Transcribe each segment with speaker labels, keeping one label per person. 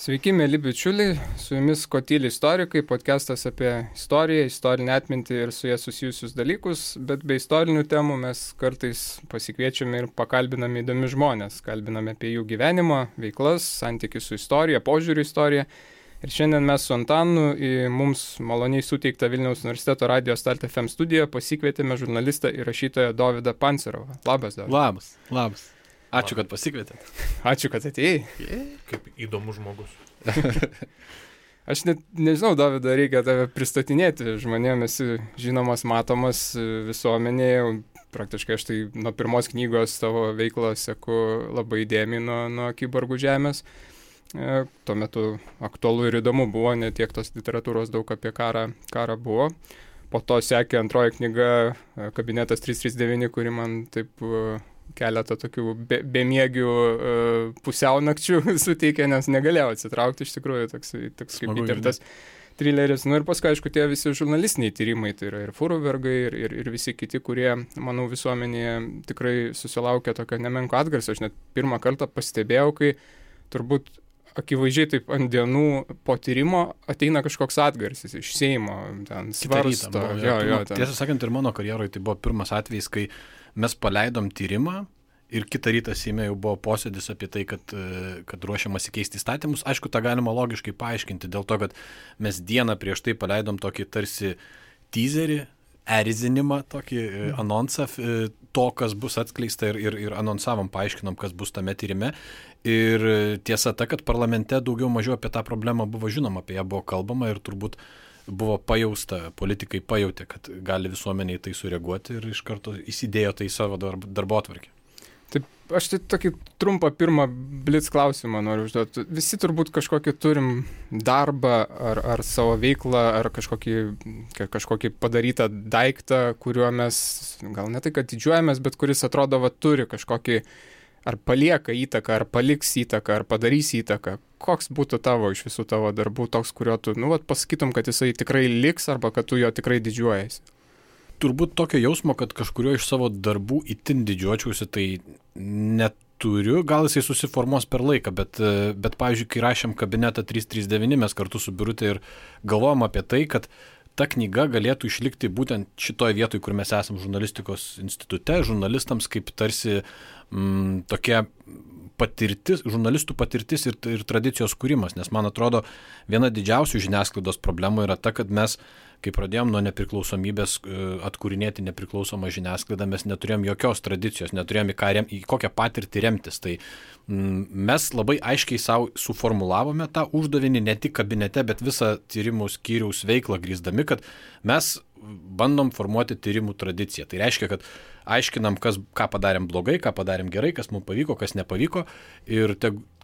Speaker 1: Sveiki, mėly bičiuliai, su jumis Kotyli istorikai, podcastas apie istoriją, istorinę atmintį ir su jie susijusius dalykus, bet be istorinių temų mes kartais pasikviečiame ir pakalbiname įdomi žmonės, kalbiname apie jų gyvenimą, veiklas, santykių su istorija, požiūrį į istoriją. Ir šiandien mes su Antanu į mums maloniai suteiktą Vilniaus universiteto Radio Start FM studiją pasikvietėme žurnalistą ir rašytoją Dovydą Pancerovą. Labas, Dovydas.
Speaker 2: Labas. Ačiū, kad pasikvietėt.
Speaker 1: Ačiū, kad atėjai.
Speaker 3: Kaip įdomus žmogus.
Speaker 1: Aš net nežinau, Dovydai, reikia tave pristatinėti. Žmonėms esi žinomas, matomas visuomenėje. Praktiškai aš tai nuo pirmos knygos tavo veiklą seku labai įdėmiai nuo Kiborgų žemės. Tuo metu aktualu ir įdomu buvo, ne tiek tos literatūros daug apie karą buvo. Po to sekė antroji knyga Kabinetas 339, kuri man taip keletą tokių bemiegių pusiaunakčių suteikė, nes negalėjau atsitraukti iš tikrųjų, toks kaip įtirtas trileris. Nu ir paskui, aišku, tie visi žurnalistiniai tyrimai, tai yra ir Furubergai, ir visi kiti, kurie, manau, visuomenėje tikrai susilaukė tokio nemenko atgarsio. Aš net pirmą kartą pastebėjau, kai turbūt akivaizdžiai taip ant dienų po tyrimo ateina kažkoks atgarsis iš Seimo, ten svarsto.
Speaker 2: Tiesą sakant, ir mano karjeroje tai buvo pirmas atvejis, kai mes paleidom tyrimą ir kitą rytą Seime jau buvo posėdis apie tai, kad ruošiamasi keisti įstatymus. Aišku, tą galima logiškai paaiškinti dėl to, kad mes dieną prieš tai paleidom tokį tarsi teaserį, erzinimą, tokį anonsą to, kas bus atskleista ir anonsavom, paaiškinom, kas bus tame tyrime. Ir tiesa ta, kad parlamente daugiau mažiau apie tą problemą buvo žinoma, apie ją buvo kalbama ir turbūt buvo pajausta, politikai pajautė, kad gali visuomeniai tai sureaguoti ir iš karto įsidėjo tai į savo darbotvarkę.
Speaker 1: Taip, aš tai tokį trumpą pirmą blitz klausimą noriu užduoti. Visi turbūt kažkokį turim darbą ar savo veiklą, ar kažkokį padarytą daiktą, kuriuo mes gal ne tai, kad didžiuojamės, bet kuris atrodo, turi kažkokį ar palieka įtaką, ar paliks įtaką, ar padarys įtaką. Koks būtų tavo iš visų tavo darbų toks, kurio tu, pasakytum, kad jisai tikrai liks, arba kad tu jo tikrai didžiuojasi?
Speaker 2: Turbūt tokio jausmo, kad kažkurio iš savo darbų itin didžiuočiausi, tai neturiu. Gal jisai susiformuos per laiką, bet pavyzdžiui, kai rašėm Kabinetą 339, mes kartu su Birute ir galvojom apie tai, kad ta knyga galėtų išlikti būtent šitoje vietoje, kur mes esam žurnalistikos institute, žurnalistams kaip tarsi tokia patirtis, žurnalistų patirtis ir tradicijos kūrimas, nes man atrodo, viena didžiausių žiniasklaidos problemų yra ta, kad mes, kai pradėjom nuo nepriklausomybės atkūrinėti nepriklausomą žiniasklaidą, mes neturėjom jokios tradicijos, neturėjom į kokią patirtį remtis. Tai mes labai aiškiai savo suformulavome tą uždavinį ne tik kabinete, bet visą tyrimų skyriaus veiklą grįsdami, kad mes bandom formuoti tyrimų tradiciją. Tai reiškia, kad aiškinam, ką padarėm blogai, ką padarėm gerai, kas mums pavyko, kas nepavyko ir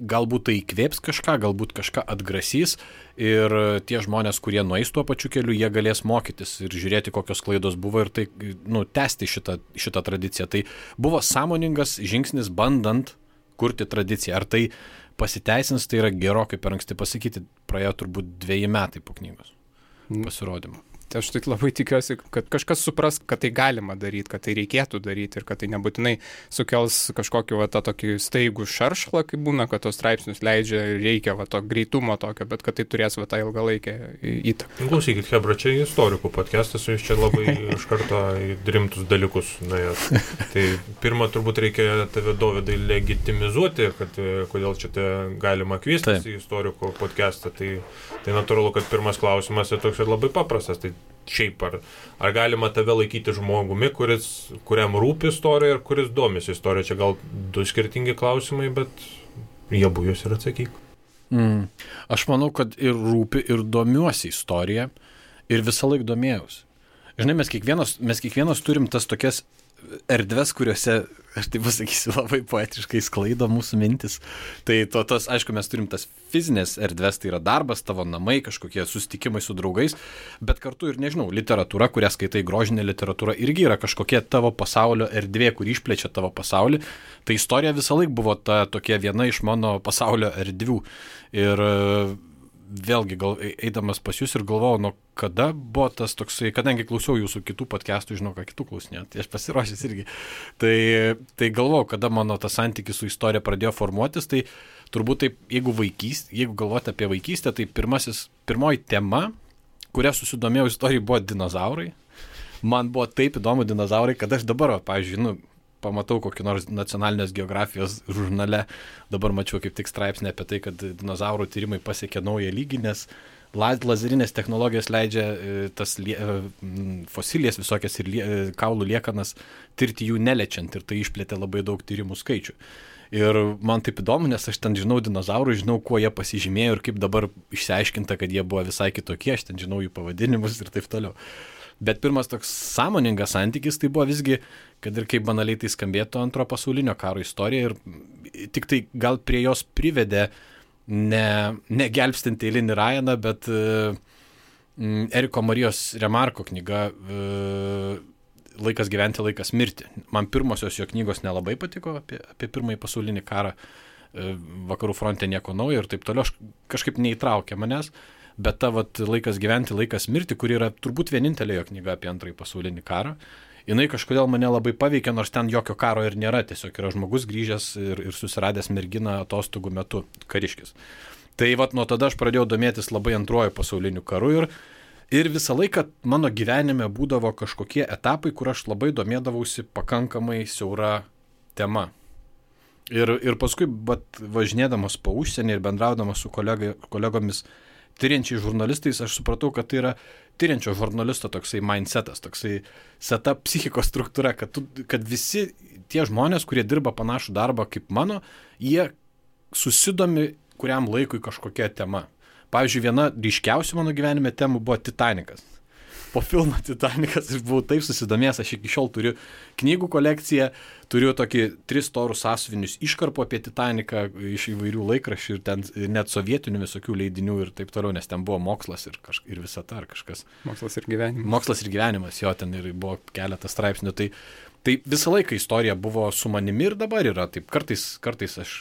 Speaker 2: galbūt tai įkvėps kažką, galbūt kažką atgrasys ir tie žmonės, kurie nueis tuo pačiu keliu, jie galės mokytis ir žiūrėti, kokios klaidos buvo ir tai tęsti šitą tradiciją. Tai buvo sąmoningas žingsnis bandant kurti tradiciją. Ar tai pasiteisins, tai yra gerokai per anksti pasakyti, praėjo turbūt 2 metai po knygos pasirodymo.
Speaker 1: Tai aš tai labai tikiuosi, kad kažkas supras, kad tai galima daryti, kad tai reikėtų daryti ir kad tai nebūtinai sukels kažkokį tą tokį staigų šaršlą, kaip būna, kad tos straipsnius leidžia ir reikia to greitumo tokio, bet kad tai turės tą ilgalaikę įtaką.
Speaker 3: Klausykit, Hebra, čia istorikų podcastas, jūs čia labai iš karto rimtus dalykus nuėjot. Tai pirmą turbūt reikia tave, Dovydai, legitimizuoti, kad kodėl čia galima kviestis į istorikų podcastą. Tai natūralu, kad pirmas klausimas yra toks ir labai paprastas. Tai šiaip ar galima tave laikyti žmogumi, kuriam rūpi istorija ir kuris domisi istorija? Čia gal 2 skirtingi klausimai, bet jie abu jūs ir atsakyk.
Speaker 2: Aš manau, kad ir rūpi, ir domiuosi istorija ir visą laiką domėjausi. Žinai, mes kiekvienas turim tas tokias erdves, kuriuose, aš tai pasakysiu, labai poetiškai sklaido mūsų mintis. Tai aišku, mes turim tas fizinės erdves, tai yra darbas, tavo namai, kažkokie susitikimai su draugais, bet kartu ir, nežinau, literatūra, kurią skaitai, grožinė literatūra, irgi yra kažkokia tavo pasaulio erdvė, kur išplečia tavo pasaulį. Tai istorija visą laiką buvo tokia viena iš mano pasaulio erdvių. Ir vėlgi eidamas pas jūs ir galvojau, nuo kada buvo tas toksai, kadangi klausiau jūsų kitų podcastų, žinau, ką kitų klausinėjau, tai aš pasiruošęs irgi. Tai galvojau, kada mano tas santykis su istorija pradėjo formuotis, tai turbūt taip, jeigu galvoti apie vaikystę, tai pirmoji tema, kuria susidomėjau istorijai, buvo dinozaurai. Man buvo taip įdomu dinozaurai, kad aš dabar, pavyzdžiui, pamatau kokį nors nacionalinės geografijos žurnale, dabar mačiau kaip tik straipsnį apie tai, kad dinozaurų tyrimai pasiekė naują lygį, nes lazerinės technologijos leidžia tas fosilijas visokias ir kaulų liekanas tirti jų neliečiant, ir tai išplėtė labai daug tyrimų skaičių. Ir man taip įdomu, nes aš ten žinau dinozaurų, žinau, kuo jie pasižymėjo ir kaip dabar išsiaiškinta, kad jie buvo visai kitokie, aš ten žinau jų pavadinimus ir taip toliau. Bet pirmas toks sąmoningas santykis tai buvo visgi, kad ir kaip banaliai tai skambėtų, Antrojo pasaulinio karo istorija, ir tik tai gal prie jos privedė ne gelbstinti eilinį Ryaną, bet Eriko Marijos Remarko knyga Laikas gyventi, laikas mirti. Man pirmosios jo knygos nelabai patiko apie Pirmąjį pasaulinį karą, vakarų fronte nieko naujo ir taip toliau, kažkaip neįtraukė manęs. Bet ta Laikas gyventi, laikas mirti, kuri yra turbūt vienintelė jo knyga apie Antrąjį pasaulinį karą, jinai kažkodėl mane labai paveikė, nors ten jokio karo ir nėra, tiesiog yra žmogus grįžęs ir susiradęs merginą atostogų metu, kariškis. Tai nuo tada aš pradėjau domėtis labai Antruoju pasauliniu karu ir visą laiką mano gyvenime būdavo kažkokie etapai, kur aš labai domėdavausi pakankamai siaura tema. Ir paskui, važinėdamas po užsienį ir bendraudamas su kolegomis tyriančiai žurnalistais, aš supratau, kad tai yra tyriančio žurnalisto toksai mindsetas, toksai seta psichikos struktūra, kad visi tie žmonės, kurie dirba panašų darbą kaip mano, jie susidomi kuriam laikui kažkokia tema. Pavyzdžiui, viena ryškiausių mano gyvenime temų buvo Titanikas. Po filmo Titanikas aš buvau taip susidomėjęs, aš iki šiol turiu knygų kolekciją, turiu tokį 3 storus sąsiuvinius iškarpų apie Titaniką iš įvairių laikraščių ir ten net sovietinių visokių leidinių ir taip toliau, nes ten buvo mokslas ir visata ar kažkas.
Speaker 1: Mokslas ir gyvenimas.
Speaker 2: Mokslas ir gyvenimas, jo, ten ir buvo keletas straipsnių. Tai visą laiką istorija buvo su manimi ir dabar yra. Taip, kartais aš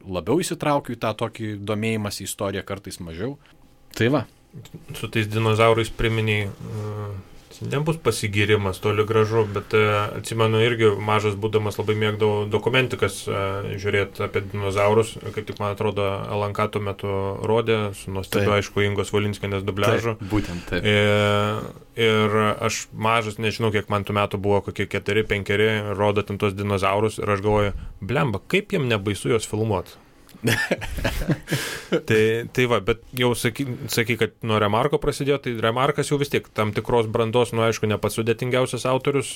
Speaker 2: labiau įsitraukiu į tą tokį domėjimąsi į istoriją, kartais mažiau. Tai va.
Speaker 3: Su tais dinozaurais priminiai, nebus pasigirimas toli gražu, bet atsimenu irgi mažas būdamas labai mėgdavau dokumentikas žiūrėti apie dinozaurus, kaip tik man atrodo LNK tuo metu rodė, su nuostabiu aišku Ingos Valinskienės dubliažu.
Speaker 2: Taip, būtent taip.
Speaker 3: Ir aš mažas, nežinau kiek man tų metų buvo, kokie 4-5, rodo ten tos dinozaurus ir aš galvoju, blemba, kaip jiem nebaisu juos filmuoti. tai va, bet jau saky, kad nuo Remarko prasidėjo, tai Remarkas jau vis tiek tam tikros brandos, aišku, ne pats sudėtingiausias autorius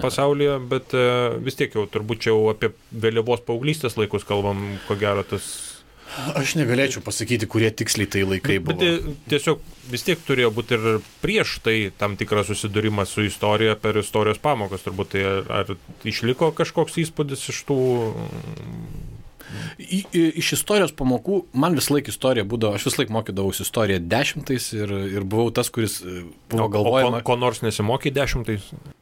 Speaker 3: pasaulyje, bet vis tiek jau turbūt čia jau apie vėlyvos paauglystės laikus kalbam, ko gero tas.
Speaker 2: Aš negalėčiau pasakyti, kurie tiksliai tai laikai buvo.
Speaker 3: Bet tiesiog vis tiek turėjo būti ir prieš tai tam tikras susidūrimas su istorija per istorijos pamokas, turbūt tai ar išliko kažkoks įspūdis iš tų.
Speaker 2: Iš istorijos pamokų, man vis laik istorija būdavo, aš vis laik mokydavausi istoriją 10 ir buvau tas, kuris buvo galvojama.
Speaker 3: Ko nors nesimokė 10?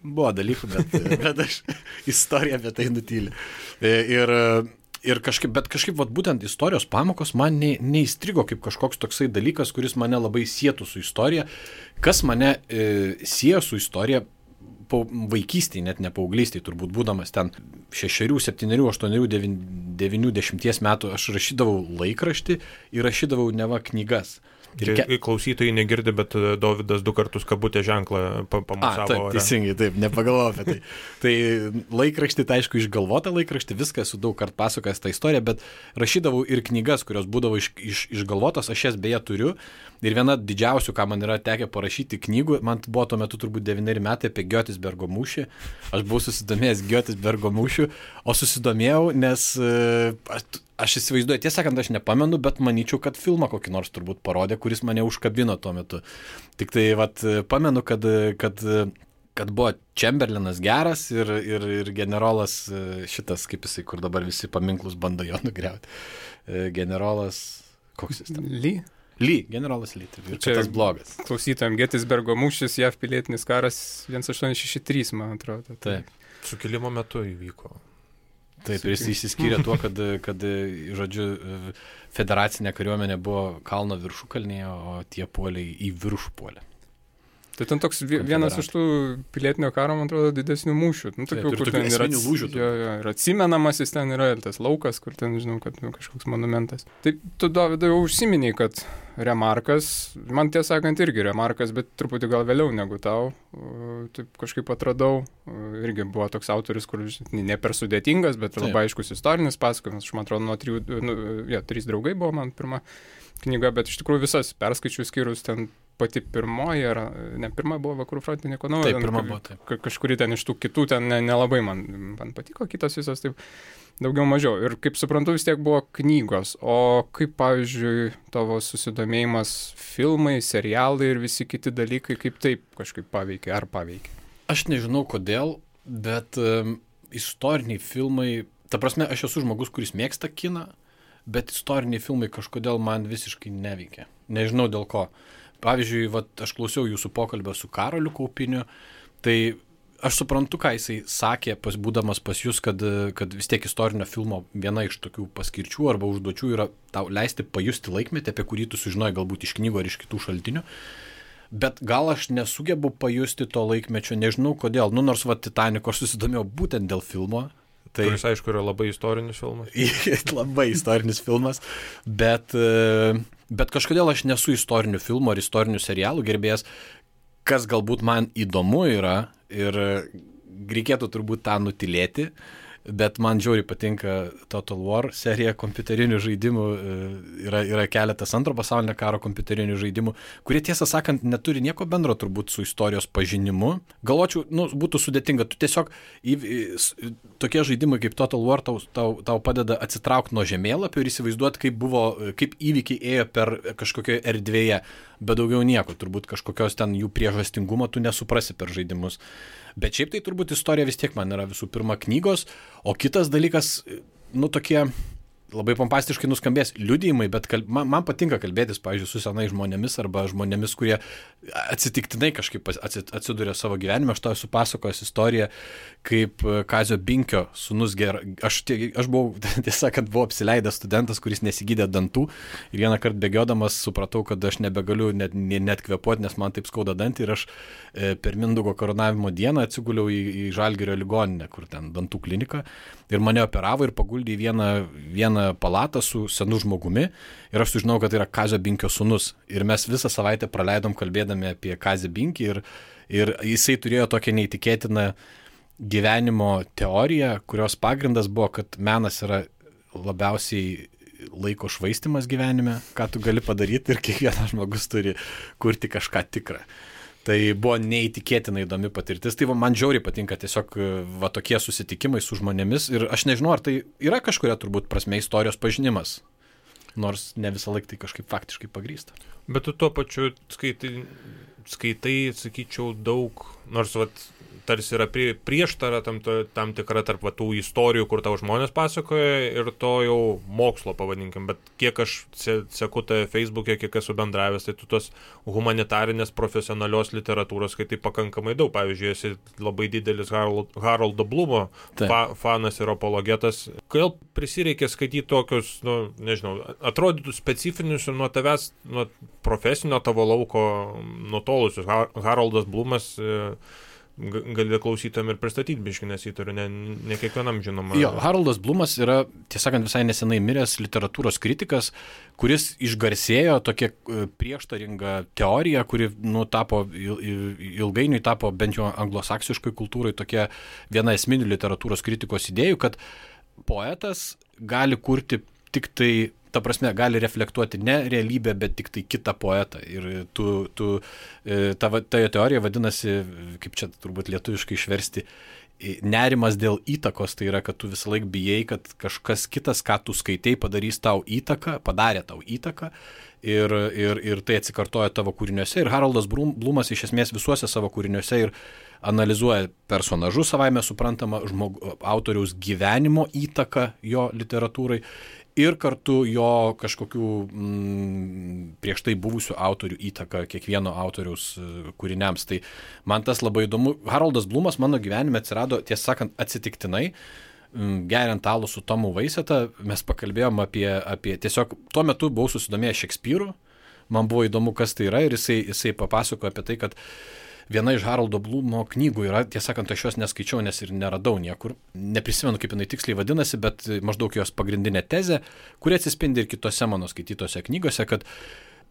Speaker 2: Buvo dalykų, bet aš istoriją apie tai nutylė. Ir kažkaip būtent istorijos pamokos man neįstrigo kaip kažkoks toksai dalykas, kuris mane labai sietų su istorija. Kas mane siejo su istorija vaikystėje, net ne paauglystėje, turbūt būdamas ten 6, 7, 8, 9, 10 metų, aš rašydavau laikraštį ir rašydavau neva knygas.
Speaker 3: Klausytojai negirdi, bet Dovydas 2 kartus kabutę ženklą pamusavo.
Speaker 2: Taip, teisingai, taip, nepagalvojau apie tai. Tai laikraštį, tai aišku, išgalvota laikraštį, viską esu daug kartų pasakojęs tą istoriją, bet rašydavau ir knygas, kurios būdavo išgalvotos, aš jas beje turiu. Ir viena didžiausių, ką man yra tekę parašyti knygų, man buvo tuo metu turbūt 9 metai apie Giotisbergo mūšį. Aš buvau susidomėjęs Giotisbergo mūšiu, o susidomėjau, nes aš įsivaizduoju, tiesą sakant, aš nepamenu, bet manyčiau, kad filmą kokį nors turbūt parodė, kuris mane užkabino tuo metu. Tik tai pamenu, kad buvo Chamberlainas geras ir generolas šitas, kaip jisai, kur dabar visi paminklus bando jo nugriauti. Generolas, koks jis ten? Lee, generolas Lee, ir čia tas blogas.
Speaker 1: Klausytojams, Gettysburgo mūšis, JAV pilietinis karas 1863, man atrodo.
Speaker 2: Taip.
Speaker 3: Sukilimo metu įvyko.
Speaker 2: Taip, ir jis išsiskyrė tuo, kad žodžiu, federacinė kariuomenė buvo kalno viršukalnėje, o tie puoliai į viršų puolė.
Speaker 1: Tai ten toks vienas iš tų pilietinio karo, man atrodo, didesnių mūšių.
Speaker 2: Tokių, kur ten yra lūžių.
Speaker 1: Ir atsimenamas jis ten yra, ir tas laukas, kur ten, žinau, kad kažkoks monumentas. Tai tu, Dovydai, jau užsiminiai, kad Remarkas, man tiesą sakant irgi Remarkas, bet truputį gal vėliau negu tau, taip kažkaip atradau, irgi buvo toks autorius, kur ne per sudėtingas, bet labai aiškus istorinis pasakojimas. Aš man atrodo, nuo 3 draugai buvo man pirma knyga, bet iš tikrųjų visas perskaičius skyrus ten pati pirmoji, ar ne pirma buvo Vakarų fronte, nieko naujo.
Speaker 2: Taip, pirma buvo, taip.
Speaker 1: Kažkuri ten iš tų kitų ten nelabai man patiko, kitos visos taip daugiau mažiau. Ir kaip suprantu, vis tiek buvo knygos. O kaip, pavyzdžiui, tavo susidomėjimas filmai, serialai ir visi kiti dalykai, kaip taip kažkaip paveikė, ar paveikė?
Speaker 2: Aš nežinau kodėl, bet istoriniai filmai, ta prasme, aš esu žmogus, kuris mėgsta kiną, bet istoriniai filmai kažkodėl man visiškai neveikia. Nežinau dėl ko. Pavyzdžiui, aš klausiau jūsų pokalbio su Karoliu Kaupiniu, tai aš suprantu, ką jisai sakė, būdamas pas jūs, kad vis tiek istorinio filmo viena iš tokių paskirčių arba užduočių yra tau leisti pajusti laikmetį, apie kurį tu sužinojai galbūt iš knygų ar iš kitų šaltinių. Bet gal aš nesugebu pajusti to laikmečio, nežinau kodėl. Nors Titaniko aš susidomėjau būtent dėl filmo.
Speaker 3: Tai kuris, aišku, yra labai istorinis filmas.
Speaker 2: Labai istorinis filmas, bet kažkodėl aš nesu istorinių filmų ar istorinių serialų gerbėjas, kas galbūt man įdomu yra ir reikėtų turbūt tą nutilėti, bet man žiauriai patinka Total War serija kompiuterinių žaidimų, yra keletas Antro pasaulinio karo kompiuterinių žaidimų, kurie tiesą sakant neturi nieko bendro turbūt su istorijos pažinimu. Galvočiau, būtų sudėtinga, tu tiesiog tokie žaidimai kaip Total War tau padeda atsitraukti nuo žemėlapio ir įsivaizduoti, kaip įvykiai ėjo per kažkokioje erdvėje, bet daugiau nieko, turbūt kažkokios ten jų priežastingumo tu nesuprasi per žaidimus. Bet šiaip tai turbūt istorija vis tiek man yra visų pirma knygos, o kitas dalykas, tokie labai pompastiškai nuskambės liudijimai, bet man patinka kalbėtis, pavyzdžiui, su senais žmonėmis arba žmonėmis, kurie atsitiktinai kažkaip atsiduria savo gyvenime. Aš tau esu pasakojęs istoriją, kaip Kazio Binkio sūnus aš buvau, tiesą, kad buvau apsileidęs studentas, kuris nesigydė dantų ir vieną kartą bėgiodamas supratau, kad aš nebegaliu net kvėpuoti, nes man taip skauda dantį ir aš per Mindaugo karūnavimo dieną atsiguliau į Žalgirio ligoninę, kur ten dantų klinika ir mane operavo ir paguldė į vieną palatą su senu žmogumi ir aš sužinau, kad tai yra Kazio Binkio sūnus. Ir mes visą savaitę praleidom kalbėdami apie Kazį Binkį ir jisai turėjo tokią neįtikėtiną gyvenimo teoriją, kurios pagrindas buvo, kad menas yra labiausiai laiko švaistymas gyvenime, ką tu gali padaryti ir kiekvienas žmogus turi kurti kažką tikrą. Tai buvo neįtikėtinai įdomi patirtis. Tai man žiauriai patinka tiesiog tokie susitikimai su žmonėmis. Ir aš nežinau, ar tai yra kažkuria turbūt prasme istorijos pažinimas. Nors ne visą laiką tai kažkaip faktiškai pagrįsta.
Speaker 3: Bet tu tuo pačiu skaitai, sakyčiau, daug, nors tarsi yra prieštara tam tikra tarp tų istorijų, kur tau žmonės pasakoja ir to jau mokslo pavadinkim, bet kiek aš seku tave Facebook'e, kiek esu bendravęs, tai tu tos humanitarinės profesionalios literatūros skaitai pakankamai daug. Pavyzdžiui, esi labai didelis Haroldo Blumo fanas ir apologetas. Kodėl prisireikė skaityti tokius, nežinau, atrodytų specifinius ir nuo tavęs, nuo profesinio tavo lauko nutolusius? Haroldas Blumas gali klausytam ir pristatyti biškį, nes jį turiu ne kiekvienam žinoma.
Speaker 2: Jo, Haroldas Blumas yra, tiesąkant, visai nesenai miręs literatūros kritikas, kuris išgarsėjo tokia prieštaringa teorija, kuri ilgainiui tapo bent jau anglosaksiškai kultūrai tokia viena esminių literatūros kritikos idėjų, kad poetas gali kurti tik tai, ta prasme, gali reflektuoti ne realybę, bet tik tai kitą poetą. Ir ta teorija vadinasi, kaip čia turbūt lietuviškai išversti, nerimas dėl įtakos. Tai yra, kad tu visą laiką bijai, kad kažkas kitas, ką tu skaitai, padarė tau įtaką ir tai atsikartoja tavo kūriniuose. Ir Haroldas Blumas iš esmės visuose savo kūriniuose ir analizuoja personažus, savaime suprantama, autoriaus gyvenimo įtaką jo literatūrai ir kartu jo kažkokių prieš tai buvusių autorių įtaką kiekvieno autoriaus kūriniams. Tai man tas labai įdomu. Haroldas Blumas mano gyvenime atsirado, tiesą sakant, atsitiktinai. geriant alų su Tomu Vaiseta, mes pakalbėjom apie tiesiog, tuo metu buvau susidomėjęs Šekspyru, man buvo įdomu, kas tai yra, ir jisai papasakojo apie tai, kad viena iš Haroldo Blumo knygų yra, tiesąkant, aš jos neskaičiau, nes ir neradau niekur, neprisimenu, kaip jinai tiksliai vadinasi, bet maždaug jos pagrindinė tezė, kuri atsispindi ir kitose mano skaitytose knygose, kad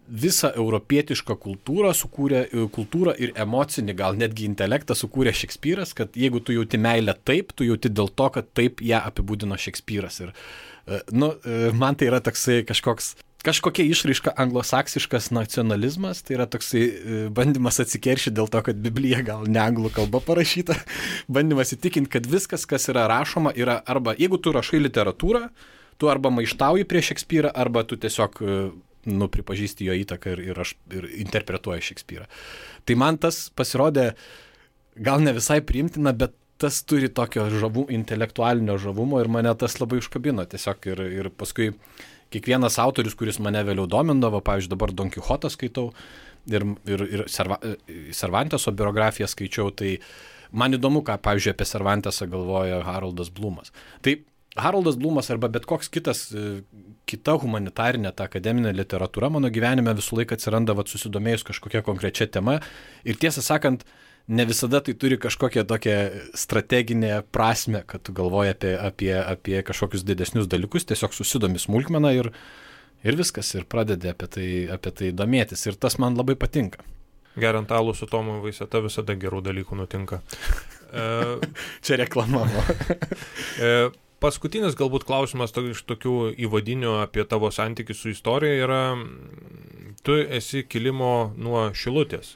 Speaker 2: visą europietišką kultūrą ir emocinį, gal netgi intelektą sukūrė Šekspyras, kad jeigu tu jauti meilę taip, tu jauti dėl to, kad taip ją apibūdino Šekspyras. Ir, man tai yra toksai kažkokia išraiška anglosaksiškas nacionalizmas, tai yra toksai bandymas atsikeršyti dėl to, kad Biblija gal ne anglų kalba parašyta, bandymas įtikinti, kad viskas, kas yra rašoma, yra arba, jeigu tu rašai literatūrą, tu arba maištauji prieš Šekspyrą, arba tu tiesiog pripažįsti jo įtaką ir interpretuoja Šekspyrą. Tai man tas pasirodė gal ne visai priimtina, bet tas turi tokio intelektualinio žavumo ir mane tas labai užkabino tiesiog ir paskui kiekvienas autorius, kuris mane vėliau domindavo, pavyzdžiui, dabar Don Quixotą skaitau ir Cervanteso biografiją skaičiau, tai man įdomu, ką, pavyzdžiui, apie Cervantesą galvoja Haroldas Blumas. Tai Haroldas Blumas arba bet koks kita humanitarinė, ta akademinė literatūra mano gyvenime visą laiką atsiranda susidomėjus kažkokia konkrečia tema ir tiesą sakant, ne visada tai turi kažkokią tokią strateginę prasme, kad tu galvoji apie kažkokius didesnius dalykus, tiesiog susidomi smulkmeną ir viskas, ir pradedi apie tai domėtis ir tas man labai patinka.
Speaker 3: Geriant alų su Tomu Vaiseta visada gerų dalykų nutinka.
Speaker 2: Čia reklama.
Speaker 3: Paskutinis galbūt klausimas iš tokių įvadinių apie tavo santykį su istorija yra, tu esi kilimo nuo Šilutės.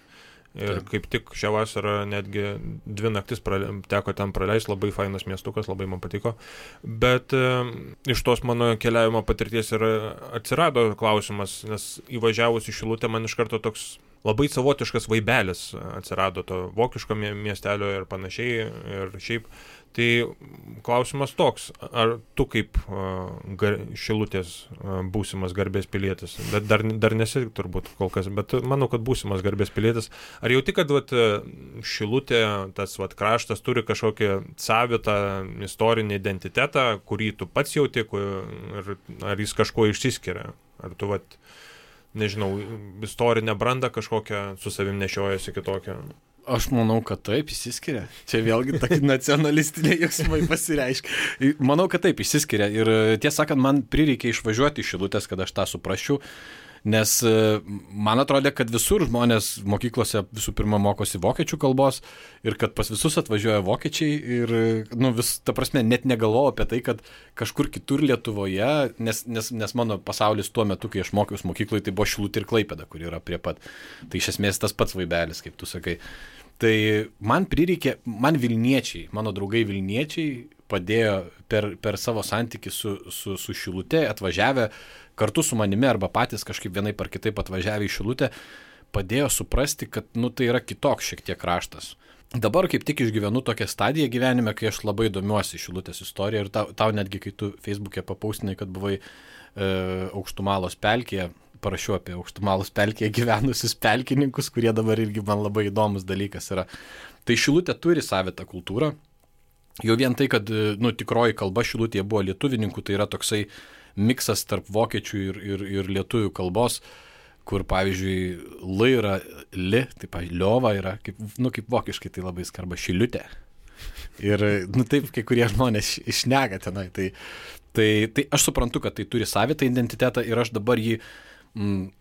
Speaker 3: Ir kaip tik šią vasarą netgi 2 naktis teko ten praleisti, labai fainas miestukas, labai man patiko. Bet iš tos mano keliavimo patirties ir atsirado klausimas, nes įvažiavus į Šilutę man iš karto toks labai savotiškas vaibelis atsirado to vokiško miestelio ir panašiai ir šiaip. Tai klausimas toks, ar tu kaip Šilutės būsimas garbės pilietis, bet dar nesi turbūt kol kas, bet manau, kad būsimas garbės pilietis, ar jauti, kad Šilutė, tas kraštas turi kažkokį savitą istorinį identitetą, kurį tu pats jauti, ar jis kažkuo išsiskiria, ar tu nežinau, istorinę brandą kažkokią su savim nešiojasi kitokią?
Speaker 2: Aš manau, kad taip, išsiskiria. Čia vėlgi tokie nacionalistiniai jausmai pasireiškia. Manau, kad taip, išsiskiria. Ir tiesą sakant, man prireikė išvažiuoti iš Šilutės, kad aš tą suprasčiau. Nes man atrodė, kad visur žmonės mokyklose visų pirma mokosi vokiečių kalbos ir kad pas visus atvažiuoja vokiečiai ir, ta prasme, net negalvojau apie tai, kad kažkur kitur Lietuvoje, nes mano pasaulis tuo metu, kai aš mokiausi mokykloje, tai buvo Šilutė ir Klaipėda, kur yra prie pat. Tai iš esmės tas pats vaibelis, kaip tu sakai. Tai man Vilniečiai, mano draugai Vilniečiai padėjo per savo santykį su Šilutė, atvažiavę kartu su manimi arba patys kažkaip vienaip ar kitaip atvažiavę į Šilutę, padėjo suprasti, kad tai yra kitoks šiek tiek kraštas. Dabar kaip tik išgyvenu tokią stadiją gyvenime, kai aš labai domiuosi Šilutės istoriją ir tau netgi, kai tu Facebook'e papaustinai, kad buvai Aukštumalos pelkėje, parašiau apie Aukštumalos pelkėje gyvenusius pelkininkus, kurie dabar irgi man labai įdomus dalykas yra. Tai Šilutė turi savitą kultūrą. Jau vien tai, kad tikroji kalba Šilutėje buvo lietuvininkų, tai yra toksai miksas tarp vokiečių ir lietuvių kalbos, kur, pavyzdžiui, L yra li, tai, pavyzdžiui, liova yra, kaip vokiškai tai labai skamba Šiliutė. Ir, taip, kai kurie žmonės išnega tenai. Tai aš suprantu, kad tai turi savitą identitetą ir aš dabar jį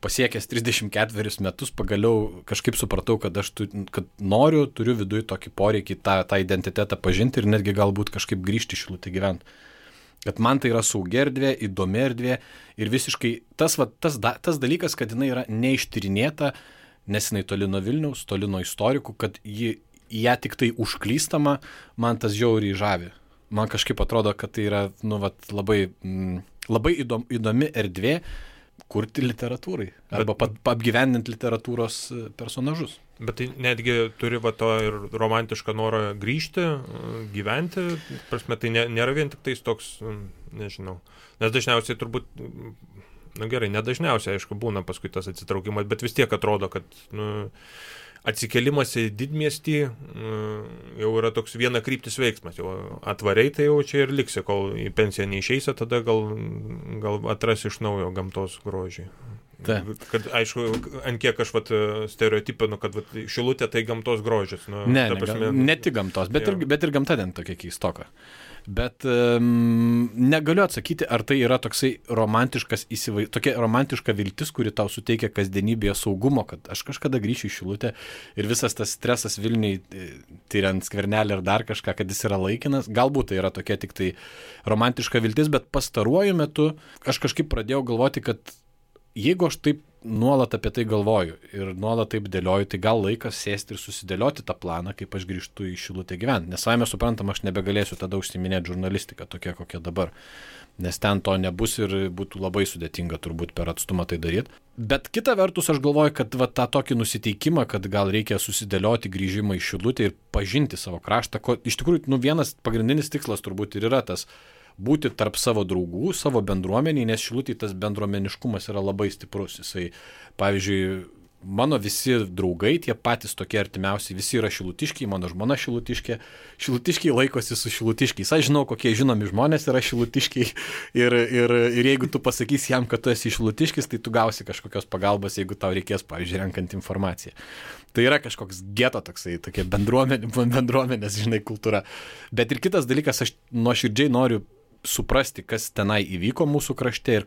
Speaker 2: pasiekęs 34 metus pagaliau kažkaip supratau, kad turiu viduje tokį poreikį tą identitetą pažinti ir netgi galbūt kažkaip grįžti į Šilutę gyventi. Kad man tai yra saugi erdvė, įdomi erdvė ir visiškai tas dalykas, kad jinai yra neištyrinėta, nes jinai toli nuo Vilniaus, toli nuo istorikų, kad ją tik tai užklystama, man tas žiauriai žavi. Man kažkaip atrodo, kad tai yra labai įdomi erdvė kurti literatūrai arba apgyvendinti literatūros personažus.
Speaker 3: Bet tai netgi turi to ir romantišką norą grįžti, gyventi, prasme, tai nėra vien tik tais toks, nežinau, nes dažniausiai turbūt, nedažniausiai, aišku, būna paskui tas atsitraukimas, bet vis tiek atrodo, kad atsikelimas į didmiestį jau yra toks vienakryptis veiksmas. Jau atvariai tai jau čia ir liksi, kol į pensiją neišeisi, tada gal atrasi iš naujo gamtos grožį. Kad, aišku, ant kiek aš stereotipinu, kad Šilutė tai gamtos grožis.
Speaker 2: Ne tik gamtos, bet ir gamta ten tokia keistoka. Bet negaliu atsakyti, ar tai yra toksai tokia romantiška viltis, kuri tau suteikia kasdienybėje saugumo, kad aš kažkada grįšiu į Šilutę ir visas tas stresas Vilniui, tyriant Skvernelį ir dar kažką, kad jis yra laikinas. Galbūt tai yra tokia tik tai romantiška viltis, bet pastaruoju metu aš kažkaip pradėjau galvoti, kad jeigu aš taip nuolat apie tai galvoju ir nuolat taip dėlioju, tai gal laikas sėsti ir susidėlioti tą planą, kaip aš grįžtu į Šilutę gyventi. Nes savame suprantama, aš nebegalėsiu tada užsiiminėti žurnalistiką tokia, kokia dabar. Nes ten to nebus ir būtų labai sudėtinga turbūt per atstumą tai daryti. Bet kita vertus aš galvoju, kad tą tokį nusiteikimą, kad gal reikia susidėlioti grįžimą į Šilutę ir pažinti savo kraštą. Iš tikrųjų, vienas pagrindinis tikslas turbūt ir yra tas būti tarp savo draugų, savo bendruomeniai, nes Šilutėj tas bendruomeniškumas yra labai stiprus. Jisai, pavyzdžiui, mano visi draugai, tie patys tokie artimiausi, visi yra šilutiškiai, mano žmona šilutiškė, šilutiškiai laikosi su šilutiškiais. Aš žinau, kokie žinomi žmonės yra šilutiškiai ir jeigu tu pasakysi jam, kad tu esi šilutiškis, tai tu gausi kažkokios pagalbos, jeigu tau reikės, pavyzdžiui, renkant informaciją. Tai yra kažkoks geto toksai, tokia bendruomenės, kultūra. Bet ir kitas dalykas, aš nuoširdžiai noriu suprasti, kas tenai įvyko mūsų krašte ir,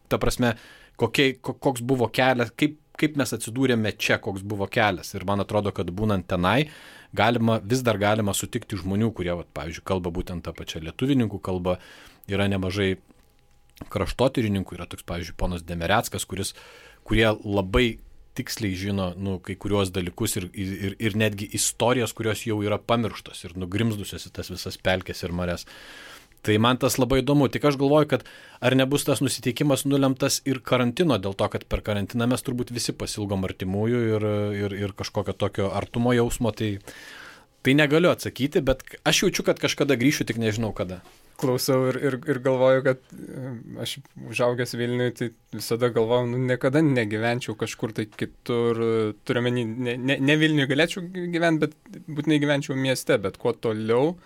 Speaker 2: ta prasme, koks buvo kelias, kaip mes atsidūrėme čia, koks buvo kelias. Ir man atrodo, kad būnant tenai, vis dar galima sutikti žmonių, kurie, pavyzdžiui, kalba būtent tą pačią lietuvininkų kalbą, yra nemažai kraštotyrininkų, yra toks, pavyzdžiui, ponas Demereckas, kurie labai tiksliai žino kai kuriuos dalykus ir netgi istorijas, kurios jau yra pamirštos ir nugrimzdusios į tas visas pelkes ir mares. Tai man tas labai įdomu. Tik aš galvoju, kad ar nebus tas nusiteikimas nulemtas ir karantino, dėl to, kad per karantiną mes turbūt visi pasilgom artimųjų ir kažkokio tokio artumo jausmo. Tai negaliu atsakyti, bet aš jaučiu, kad kažkada grįšiu, tik nežinau kada.
Speaker 1: Klausau ir galvoju, kad aš užaugęs Vilniui, tai visada galvojau, niekada negyvenčiau kažkur tai kitur, turiuomenį, ne Vilniui galėčiau gyventi, bet būtinai gyvenčiau mieste, bet kuo toliau,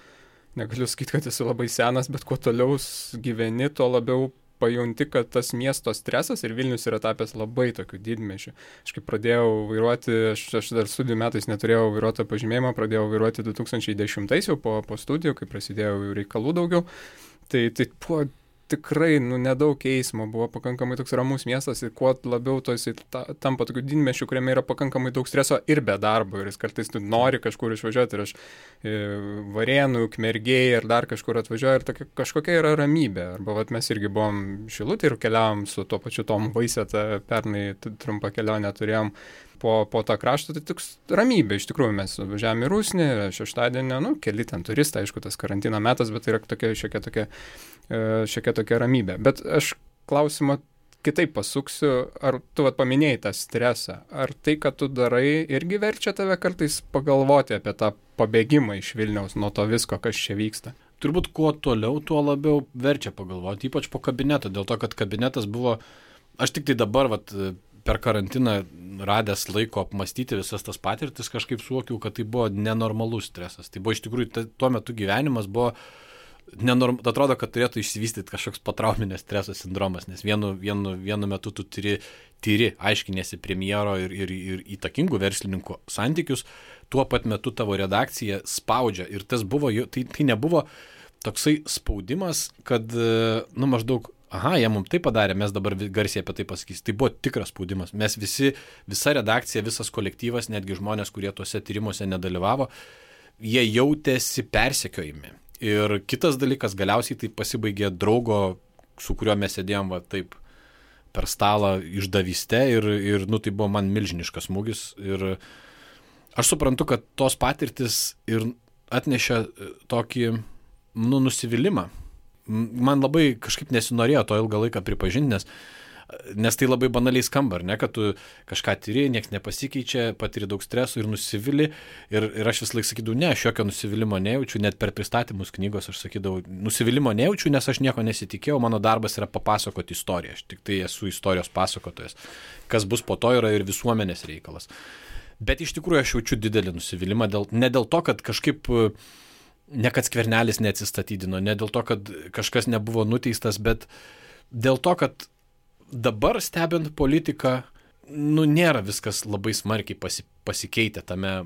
Speaker 1: negaliu sakyti, kad esu labai senas, bet kuo toliau gyveni, tuo labiau pajunti, kad tas miesto stresas ir Vilnius yra tapęs labai tokiu didmiesčiu. Aš kai pradėjau vairuoti, aš dar studijų metais neturėjau vairuotojo pažymėjimo, pradėjau vairuoti 2010 jau po studijų, kai prasidėjo reikalų daugiau. Tai buvo tikrai nedaug eismo, buvo pakankamai toks ramus miestas ir kuo labiau to jisai tampa tokiu didmiesčiu, kuriame yra pakankamai daug streso ir be darbo ir jis kartais nori kažkur išvažiuoti ir aš Varėnų, Ukmergėj ir dar kažkur atvažiuoju ir kažkokia yra ramybė. Arba mes irgi buvom Šilutėj ir keliavom su tuo pačiu Tom Vaiseta, pernai trumpą kelionę turėjom po tą kraštą, tai toks ramybė. Iš tikrųjų mes važiavome į Rusnį, šeštadienį, keli ten turistai, aišku, tas karantino metas, bet tai yra šiokia tokia ramybė. Bet aš klausimą kitaip pasuksiu, ar tu paminėjai tą stresą, ar tai, kad tu darai, irgi verčia tave kartais pagalvoti apie tą pabėgimą iš Vilniaus nuo to visko, kas čia vyksta?
Speaker 2: Turbūt kuo toliau, tuo labiau verčia pagalvoti, ypač po kabineto, dėl to, kad kabinetas buvo, aš tik tai dabar per karantiną radęs laiko apmastyti visas tas patirtis, kažkaip suvokiau, kad tai buvo nenormalus stresas. Tai buvo iš tikrųjų, tuo metu gyvenimas buvo atrodo, kad turėtų išsivystyti kažkoks potrauminio streso sindromas, nes vienu metu tu tyri aiškinėsi premjero ir įtakingų verslininkų santykius, tuo pat metu tavo redakcija spaudžia ir tas buvo, tai nebuvo toksai spaudimas, kad, maždaug jie mums tai padarė, mes dabar garsiai apie tai pasakysim. Tai buvo tikras spaudimas. Mes visa redakcija, visas kolektyvas, netgi žmonės, kurie tuose tyrimuose nedalyvavo, jie jautėsi persekiojami. Ir kitas dalykas, galiausiai tai pasibaigė draugo, su kuriuo mes sėdėjom taip per stalą išdavyste ir tai buvo man milžiniškas smūgis. Ir aš suprantu, kad tos patirtis ir atnešė tokį nusivylimą. Man labai kažkaip nesinorėjo to ilgą laiką pripažinti, nes tai labai banaliai skamba, ne, kad tu kažką tyri, nieks nepasikeičia, patiri daug streso ir nusivili. Ir aš vis laik sakydavau, ne, aš jokio nusivylimo nejaučiu, net per pristatymus knygos aš sakydavau, nusivylimo nejaučiu, nes aš nieko nesitikėjau, mano darbas yra papasakoti istoriją, aš tik tai esu istorijos pasakotojas. Kas bus po to yra ir visuomenės reikalas. Bet iš tikrųjų aš jaučiu didelį nusivylimą, ne dėl to, kad kažkaip, ne kad Skvernelis neatsistatydino, ne dėl to, kad kažkas nebuvo nuteistas, bet dėl to, kad dabar stebint politiką, nėra viskas labai smarkiai pasikeitę tame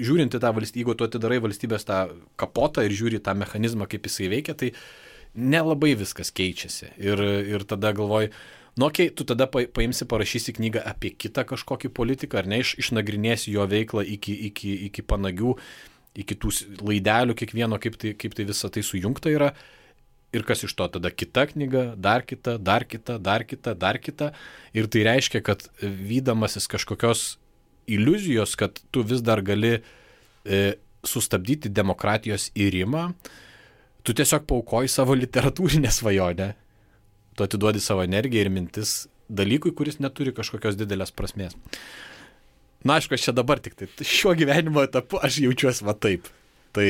Speaker 2: žiūrint į tą valstybę, jeigu tu atidarai valstybės tą kapotą ir žiūri tą mechanizmą, kaip jisai veikia, tai nelabai viskas keičiasi. Ir tada galvoji, okei, tu tada paimsi, parašysi knygą apie kitą kažkokį politiką, ar ne, išnagrinėsi jo veiklą iki panagių, iki tų laidelių kiekvieno, kaip tai visa tai sujungta yra. Ir kas iš to tada kita knyga, dar kita. Ir tai reiškia, kad vydamasis kažkokios iliuzijos, kad tu vis dar gali sustabdyti demokratijos irimą, tu tiesiog paukoji savo literatūrinę svajonę. Tu atiduodi savo energiją ir mintis dalykui, kuris neturi kažkokios didelės prasmės. Na, aišku, aš čia dabar tik tai šiuo gyvenimo etapu aš jaučiuosi va taip. Tai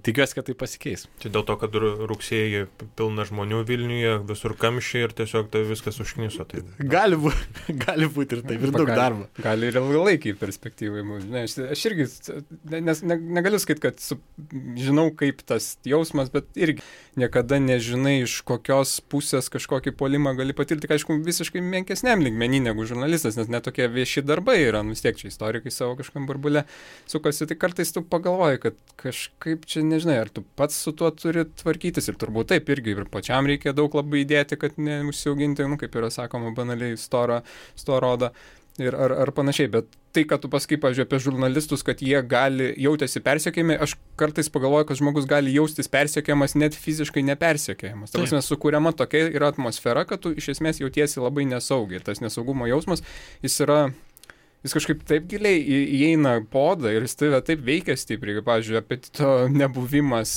Speaker 2: tikiuosi, kad tai pasikeis.
Speaker 3: Tai dėl to, kad rugsėjį pilna žmonių Vilniuje, visur kamščiai ir tiesiog tai viskas užkniso. Tai...
Speaker 2: Gali būti ir taip, ir daug darbo.
Speaker 1: Gali ir ilgalaikiai perspektyvai. Aš irgi negaliu sakyti, kad žinau, kaip tas jausmas, bet irgi niekada nežinai, iš kokios pusės kažkokį puolimą gali patirti, aišku, visiškai menkesniam lygmenį negu žurnalistas, nes netokie vieši darbai yra, vis tiek čia istorikai savo kažkam burbule sukasi, tai kartais tu pagalvoji, kad kažkaip čia nežinai, ar tu pats su tuo turi tvarkytis ir turbūt taip irgi ir pačiam reikia daug labai įdėti, kad neužsiauginti, kaip yra sakoma, banaliai storą odą ir ar panašiai, bet tai, kad tu pasakai, pavyzdžiui, apie žurnalistus, kad jie jautėsi persekiojami, aš kartais pagalvoju, kad žmogus gali jaustis persekiojamas net fiziškai nepersekiojamas. Ta prasme, sukuriama tokia yra atmosfera, kad tu iš esmės jautiesi labai nesaugiai. Tas nesaugumo jausmas, jis kažkaip taip giliai įeina podą ir jis taip veikia stipriai, pavyzdžiui, apetito nebuvimas,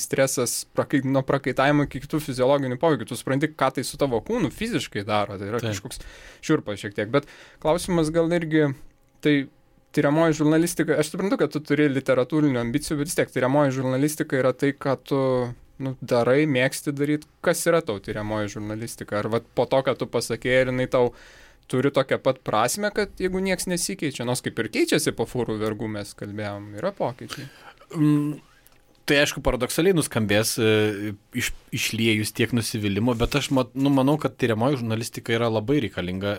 Speaker 1: stresas nuo prakaitavimo iki kitų fiziologinių poveikių. Tu supranti, ką tai su tavo kūnu fiziškai daro, tai yra kažkoks šiurpas šiek tiek. Bet klausimas gal irgi, tai tyriamoji žurnalistika, aš suprantu, kad tu turi literatūrinių ambicijų, bet vis tiek tyriamoji žurnalistika yra tai, ką tu darai, mėgsti daryti. Kas yra tau tyriamoji žurnalistika? Ar po to, kad tu pasakėjai, ir jinai tau turi tokią pat prasme, kad jeigu nieks nesikeičia, nors kaip ir keičiasi po fūrų vergų, mes kalbėjom, yra pokyčiai.
Speaker 2: Tai aišku, paradoksaliai nuskambės išliejus tiek nusivylimo, bet aš manau, kad tyriamoji žurnalistika yra labai reikalinga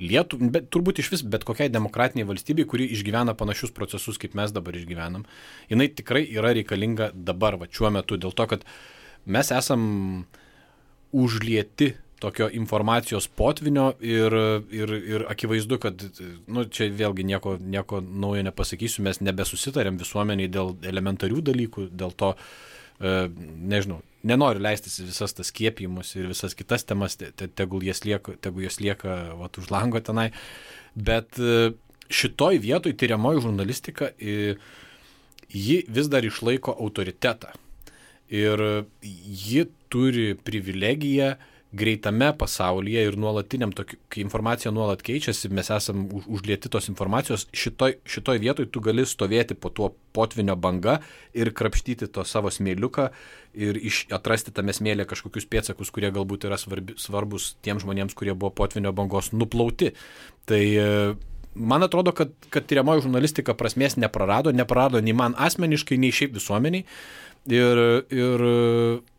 Speaker 2: bet turbūt iš vis bet kokiai demokratiniai valstybei, kuri išgyvena panašius procesus, kaip mes dabar išgyvenam. Jinai tikrai yra reikalinga dabar, šiuo metu, dėl to, kad mes esam užlieti tokio informacijos potvinio ir akivaizdu, kad čia vėlgi nieko naujo nepasakysiu, mes nebesusitarėm visuomeniai dėl elementarių dalykų, dėl to, nežinau, nenoriu leistis visas tas skiepijimus ir visas kitas temas, tegul jos lieka už lango tenai, bet šitoj vietoj tyriamoji žurnalistika, ji vis dar išlaiko autoritetą ir ji turi privilegiją greitame pasaulyje ir nuolatiniam, kai informacija nuolat keičiasi, mes esam užlieti tos informacijos, šitoj vietoj tu gali stovėti po tuo potvinio banga ir krapštyti to savo smėliuką ir atrasti tame smėlė kažkokius pėdsakus, kurie galbūt yra svarbus tiems žmonėms, kurie buvo potvinio bangos nuplauti. Tai man atrodo, kad tyriamoji žurnalistika prasmės neprarado nei man asmeniškai, nei šiaip visuomeniai. Ir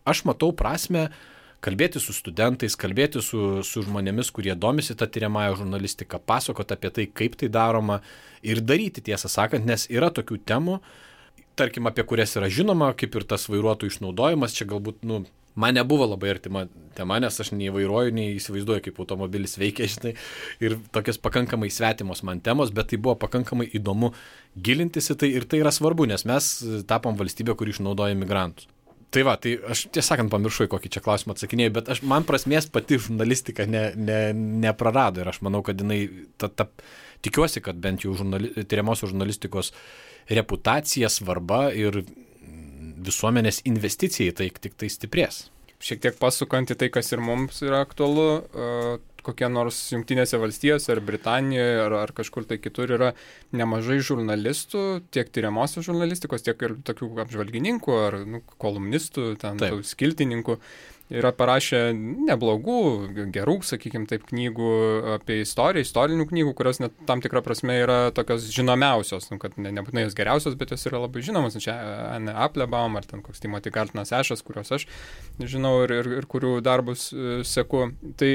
Speaker 2: aš matau prasmę kalbėti su studentais, kalbėti su žmonėmis, kurie domisi tą tyriamąją žurnalistiką, pasakoti apie tai, kaip tai daroma ir daryti, tiesą sakant, nes yra tokių temų, tarkim, apie kurias yra žinoma, kaip ir tas vairuotojų išnaudojimas, čia galbūt, man nebuvo labai artima tema, nes aš nei vairuoju, nei įsivaizduoju, kaip automobilis veikia, žinai, ir tokias pakankamai svetimos man temos, bet tai buvo pakankamai įdomu gilintis į tai ir tai yra svarbu, nes mes tapom valstybė, kuri išnaudoja migrantus. Tai aš tiesąkant pamiršau, kokį čia klausimą atsakinėjau, bet man prasmės pati žurnalistika neprarado ir aš manau, kad jinai, tikiuosi, kad bent jau tyriamosios žurnalistikos reputacija, svarba ir visuomenės investicija į tai tik tai stiprės.
Speaker 1: Šiek tiek pasukant į tai, kas ir mums yra aktualu, kokie nors Jungtinėse valstijose ar Britanijoje ar kažkur tai kitur yra nemažai žurnalistų, tiek tyriamosios žurnalistikos, tiek ir tokių apžvalgininkų ar kolumnistų, ten skiltininkų. Yra parašę neblogų, gerų, sakykime taip, knygų apie istoriją, istorinių knygų, kurios net tam tikrą prasme yra tokios žinomiausios, kad nebūtinai jos geriausios, bet jos yra labai žinomos. Čia Anne Applebaum ar ten koks Timothy Gartonas Ešas, kuriuos aš žinau ir kurių darbus seku. Tai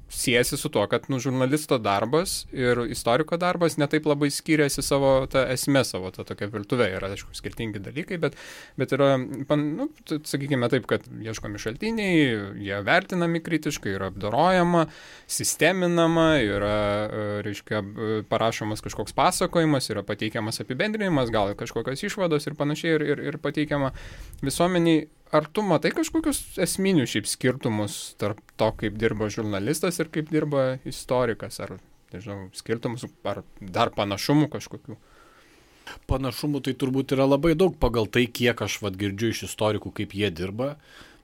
Speaker 1: siejasi su tuo, kad žurnalisto darbas ir istoriko darbas netaip labai skiriasi savo tą esmę, savo tą tokią virtuvę. Yra, aišku, skirtingi dalykai, bet yra, sakykime taip, kad ieškomi šaltiniai, jie vertinami kritiškai, yra apdorojama, sisteminama, yra, reiškia, parašomas kažkoks pasakojimas, yra pateikiamas apibendrinimas, gal kažkokios išvados ir panašiai ir pateikiama visuomeniai. Ar tu matai kažkokius esminius šiaip skirtumus tarp to, kaip dirba žurnalistas ir kaip dirba istorikas? Ar, nežinau, skirtumus, ar dar panašumų kažkokių?
Speaker 2: Panašumų tai turbūt yra labai daug pagal tai, kiek aš girdžiu iš istorikų, kaip jie dirba.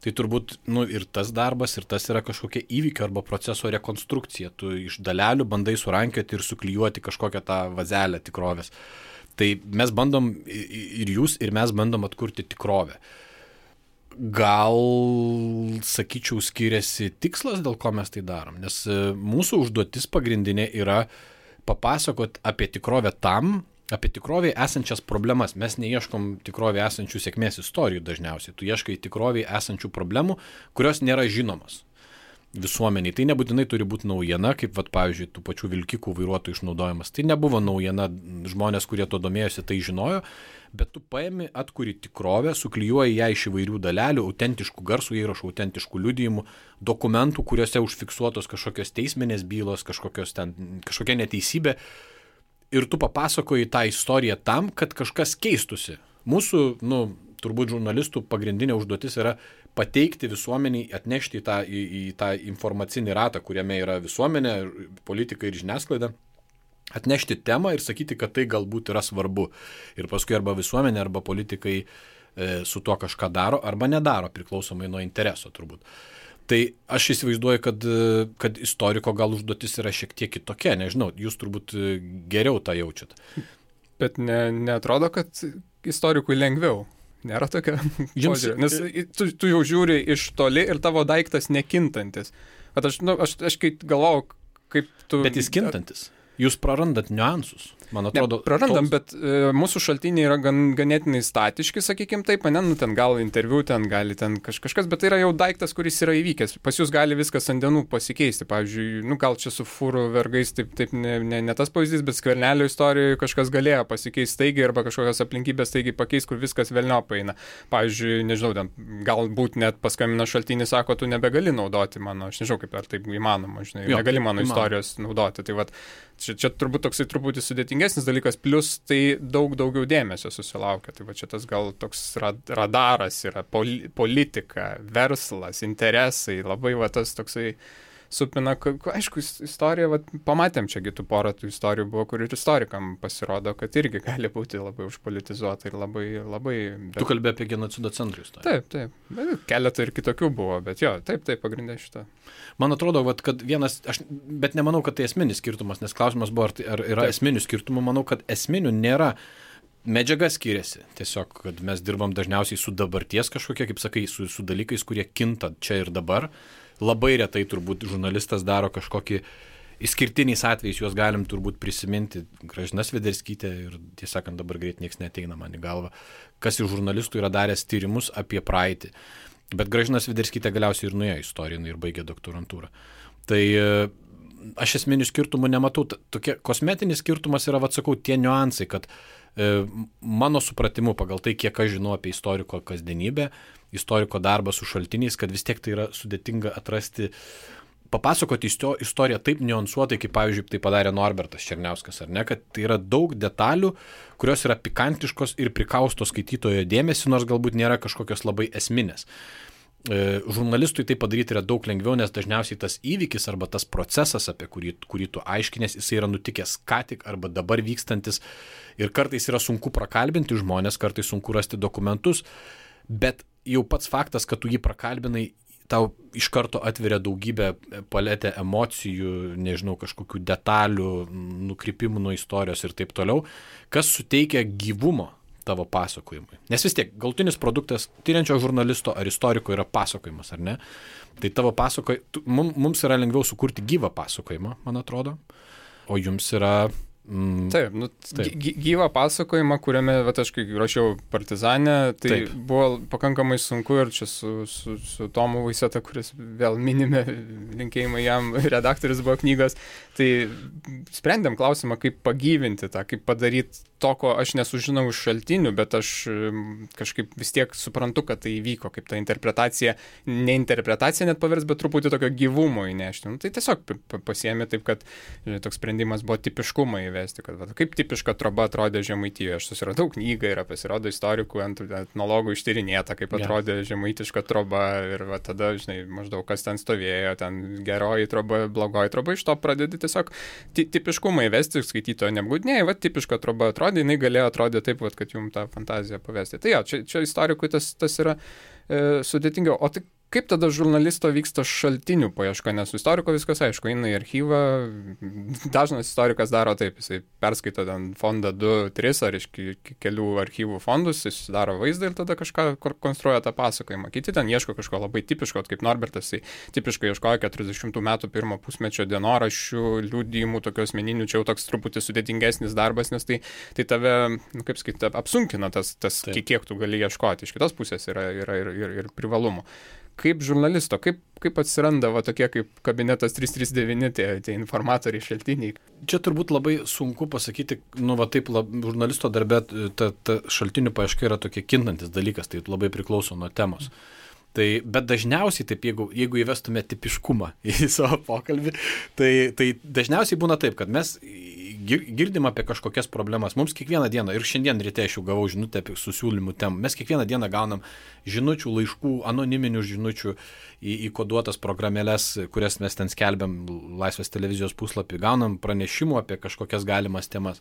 Speaker 2: Tai turbūt ir tas darbas, ir tas yra kažkokia įvykio arba proceso rekonstrukcija. Tu iš dalelių bandai surankioti ir suklijuoti kažkokią tą vazelę tikrovės. Tai mes bandom, ir jūs, ir mes bandom atkurti tikrovę. Gal, sakyčiau, skiriasi tikslas, dėl ko mes tai darom, nes mūsų užduotis pagrindinė yra papasakot apie tikrovę apie tikrovėje esančias problemas. Mes neieškom tikrovėje esančių sėkmės istorijų dažniausiai, tu ieškai tikrovėje esančių problemų, kurios nėra žinomos visuomeniai. Tai nebūtinai turi būti naujiena, kaip, pavyzdžiui, tų pačių vilkikų vairuotojų išnaudojimas. Tai nebuvo naujiena, žmonės, kurie to domėjosi, tai žinojo, bet tu paimi, atkuri tikrovę, suklijuoji ją iš įvairių dalelių, autentiškų garsų įrašų, autentiškų liudijimų, dokumentų, kuriuose užfiksuotos kažkokios teisminės bylos, kažkokia neteisybė. Ir tu papasakoji tą istoriją tam, kad kažkas keistusi. Mūsų, turbūt žurnalistų pagrindinė užduotis yra pateikti visuomeniai, atnešti į tą informacinį ratą, kuriame yra visuomenė, politika ir žiniasklaida, atnešti temą ir sakyti, kad tai galbūt yra svarbu. Ir paskui arba visuomenė, arba politikai su tuo kažką daro, arba nedaro, priklausomai nuo intereso turbūt. Tai aš įsivaizduoju, kad istoriko gal užduotis yra šiek tiek kitokia, nežinau, jūs turbūt geriau tą jaučiat.
Speaker 1: Bet neatrodo, kad istorikui lengviau. Nėra tokia požiūrė. Nes tu jau žiūri iš toli ir tavo daiktas nekintantis. Bet aš kai galvojau, kaip tu...
Speaker 2: Bet jis kintantis. Jūs prarandat niuansus. Man atrodo,
Speaker 1: prarandam, bet mūsų šaltiniai yra ganėtinai statiški, sakykime taip, ten gal interviu, ten gali ten kažkas, bet tai yra jau daiktas, kuris yra įvykęs. Pas jūs gali viskas ant dienų pasikeisti. Pavyzdžiui, gal čia su fūrų vergais taip ne tas pavyzdys, bet Skvernelio istorijoje kažkas galėjo pasikeisti staigiai arba kažkokios aplinkybės staigiai pakeisti, kur viskas velniop eina. Pavyzdžiui, nežinau, galbūt net paskambina šaltinį, sako, tu nebegali naudoti mano, aš nežinau, kaip ar taip įmanoma, negali mano istorijos naudoti. Tai čia turbūt toksai truputį sudėtingesnis dalykas, plus tai daug daugiau dėmesio susilaukia. Tai čia tas gal toks radaras yra, politika, verslas, interesai, labai tas toksai supina, aišku, istorija, pamatėm čiagi tų porą tų istorijų buvo, kur ir istorikam pasirodo, kad irgi gali būti labai užpolitizuota ir labai...
Speaker 2: Tu kalbė apie genocido centrų istoriją.
Speaker 1: Taip. Keletą ir kitokių buvo, bet jo, taip, pagrindė šitą.
Speaker 2: Man atrodo, kad vienas, bet nemanau, kad tai esminis skirtumas, nes klausimas buvo, ar yra esminių skirtumų, manau, kad esminių nėra. Medžiaga skiriasi. Tiesiog, kad mes dirbam dažniausiai su dabarties kažkokie, kaip sakai, su dalykais, kurie kinta čia ir dabar. Labai retai turbūt žurnalistas daro kažkokį išskirtiniais atvejais, juos galim turbūt prisiminti. Gražina Svederskytė ir tiesąkant dabar greit nieks neateina man į galvą, kas iš žurnalistų yra daręs tyrimus apie praeitį. Bet Gražina Svederskytė galiausiai ir nuėjo istoriją ir baigė doktorantūrą. Tai aš esminių skirtumų nematau. Tokie kosmetinis skirtumas yra, sakau, tie niuansai, kad mano supratimu pagal tai, kiek aš žinau apie istoriko kasdienybę, istoriko darbą su šaltiniais, kad vis tiek tai yra sudėtinga atrasti, papasakoti istoriją taip niuansuotai, kaip pavyzdžiui tai padarė Norbertas Černiauskas, ar ne, kad tai yra daug detalių, kurios yra pikantiškos ir prikausto skaitytojo dėmesį, nors galbūt nėra kažkokios labai esminės. Žurnalistui tai padaryti yra daug lengviau, nes dažniausiai tas įvykis arba tas procesas, apie kurį tu aiškinės, jisai yra nutikęs ką tik arba dabar vykstantis ir kartais yra sunku prakalbinti žmonės, kartais sunku rasti dokumentus, bet jau pats faktas, kad tu jį prakalbinai, tau iš karto atveria daugybę paletę emocijų, nežinau, kažkokių detalių, nukrypimų nuo istorijos ir taip toliau, kas suteikia gyvumo tavo pasakojimui. Nes vis tiek, galutinis produktas tyriančio žurnalisto ar istoriko yra pasakojimas, ar ne? Tai tavo mums yra lengviau sukurti gyvą pasakojimą, man atrodo, o jums yra...
Speaker 1: Taip, gyvą pasakojimą, kuriame, aš kai rašiau Partizanę, tai buvo pakankamai sunku ir čia su Tomu Vaiseta, kuris vėl minime, linkėjimai jam, redaktorius buvo knygos, tai sprendėm klausimą, kaip pagyvinti tą, kaip padaryti to, ko aš nesužinau iš šaltinių, bet aš kažkaip vis tiek suprantu, kad tai įvyko, kaip ta interpretacija, ne interpretacija net pavers, bet truputį tokio gyvumo įnešti. Tai tiesiog pasiėmė taip, kad toks sprendimas buvo tipiškumą įvesti, kad kaip tipiška troba atrodė Žemaitijoje. Aš susiradau knygą ir pasirodo istorikų, etnologų ištyrinėta, kaip atrodė žemaitiška troba ir tada, maždaug kas ten stovėjo, ten geroji troba, blogoji troba, iš to pradedi tiesiog tipiškumą įvesti, skaitytojo neapgaudinėjai, tipiška troba atrodė, jinai galėjo atrodyti taip, kad jums tą fantaziją pavesti. Tai čia istorikui tas yra sudėtingiau. O tai kaip tada žurnalisto vyksta šaltinių paieška, nes su istoriko viskas aišku, eina į archyvą, dažnas istorikas daro taip, jisai perskaito ten fondą 2-3 ar iš kelių archyvų fondus, jis daro vaizdą ir tada kažką konstruoja tą pasakojimą. Kiti ten ieško kažko labai tipiško, kaip Norbertas, jisai tipiškai ieškojo 40 metų pirmo pusmečio dienoraščių, liudijimų, tokių asmeninių, čia jau toks truputį sudėtingesnis darbas, nes tai tave, kaip sakyti, apsunkina tas kiek tu gali ieškoti. Iš kitos pusės yra ir privalumų. Kaip žurnalisto, kaip atsiranda tokie kaip kabinetas 339, tie informatoriai, šaltiniai?
Speaker 2: Čia turbūt labai sunku pasakyti, žurnalisto darbe ta šaltinių paieška yra tokie kintantis dalykas, tai labai priklauso nuo temos. Bet dažniausiai, taip, jeigu įvestume tipiškumą į savo pokalbį, tai dažniausiai būna taip, kad mes girdim apie kažkokias problemas. Mums kiekvieną dieną, ir šiandien ryte aš jau gavau žinutę apie susiūlymų temų, mes kiekvieną dieną gaunam žinučių, laiškų, anoniminių žinučių į koduotas programėlės, kurias mes ten skelbiam Laisvės televizijos puslapį, gaunam pranešimų apie kažkokias galimas temas.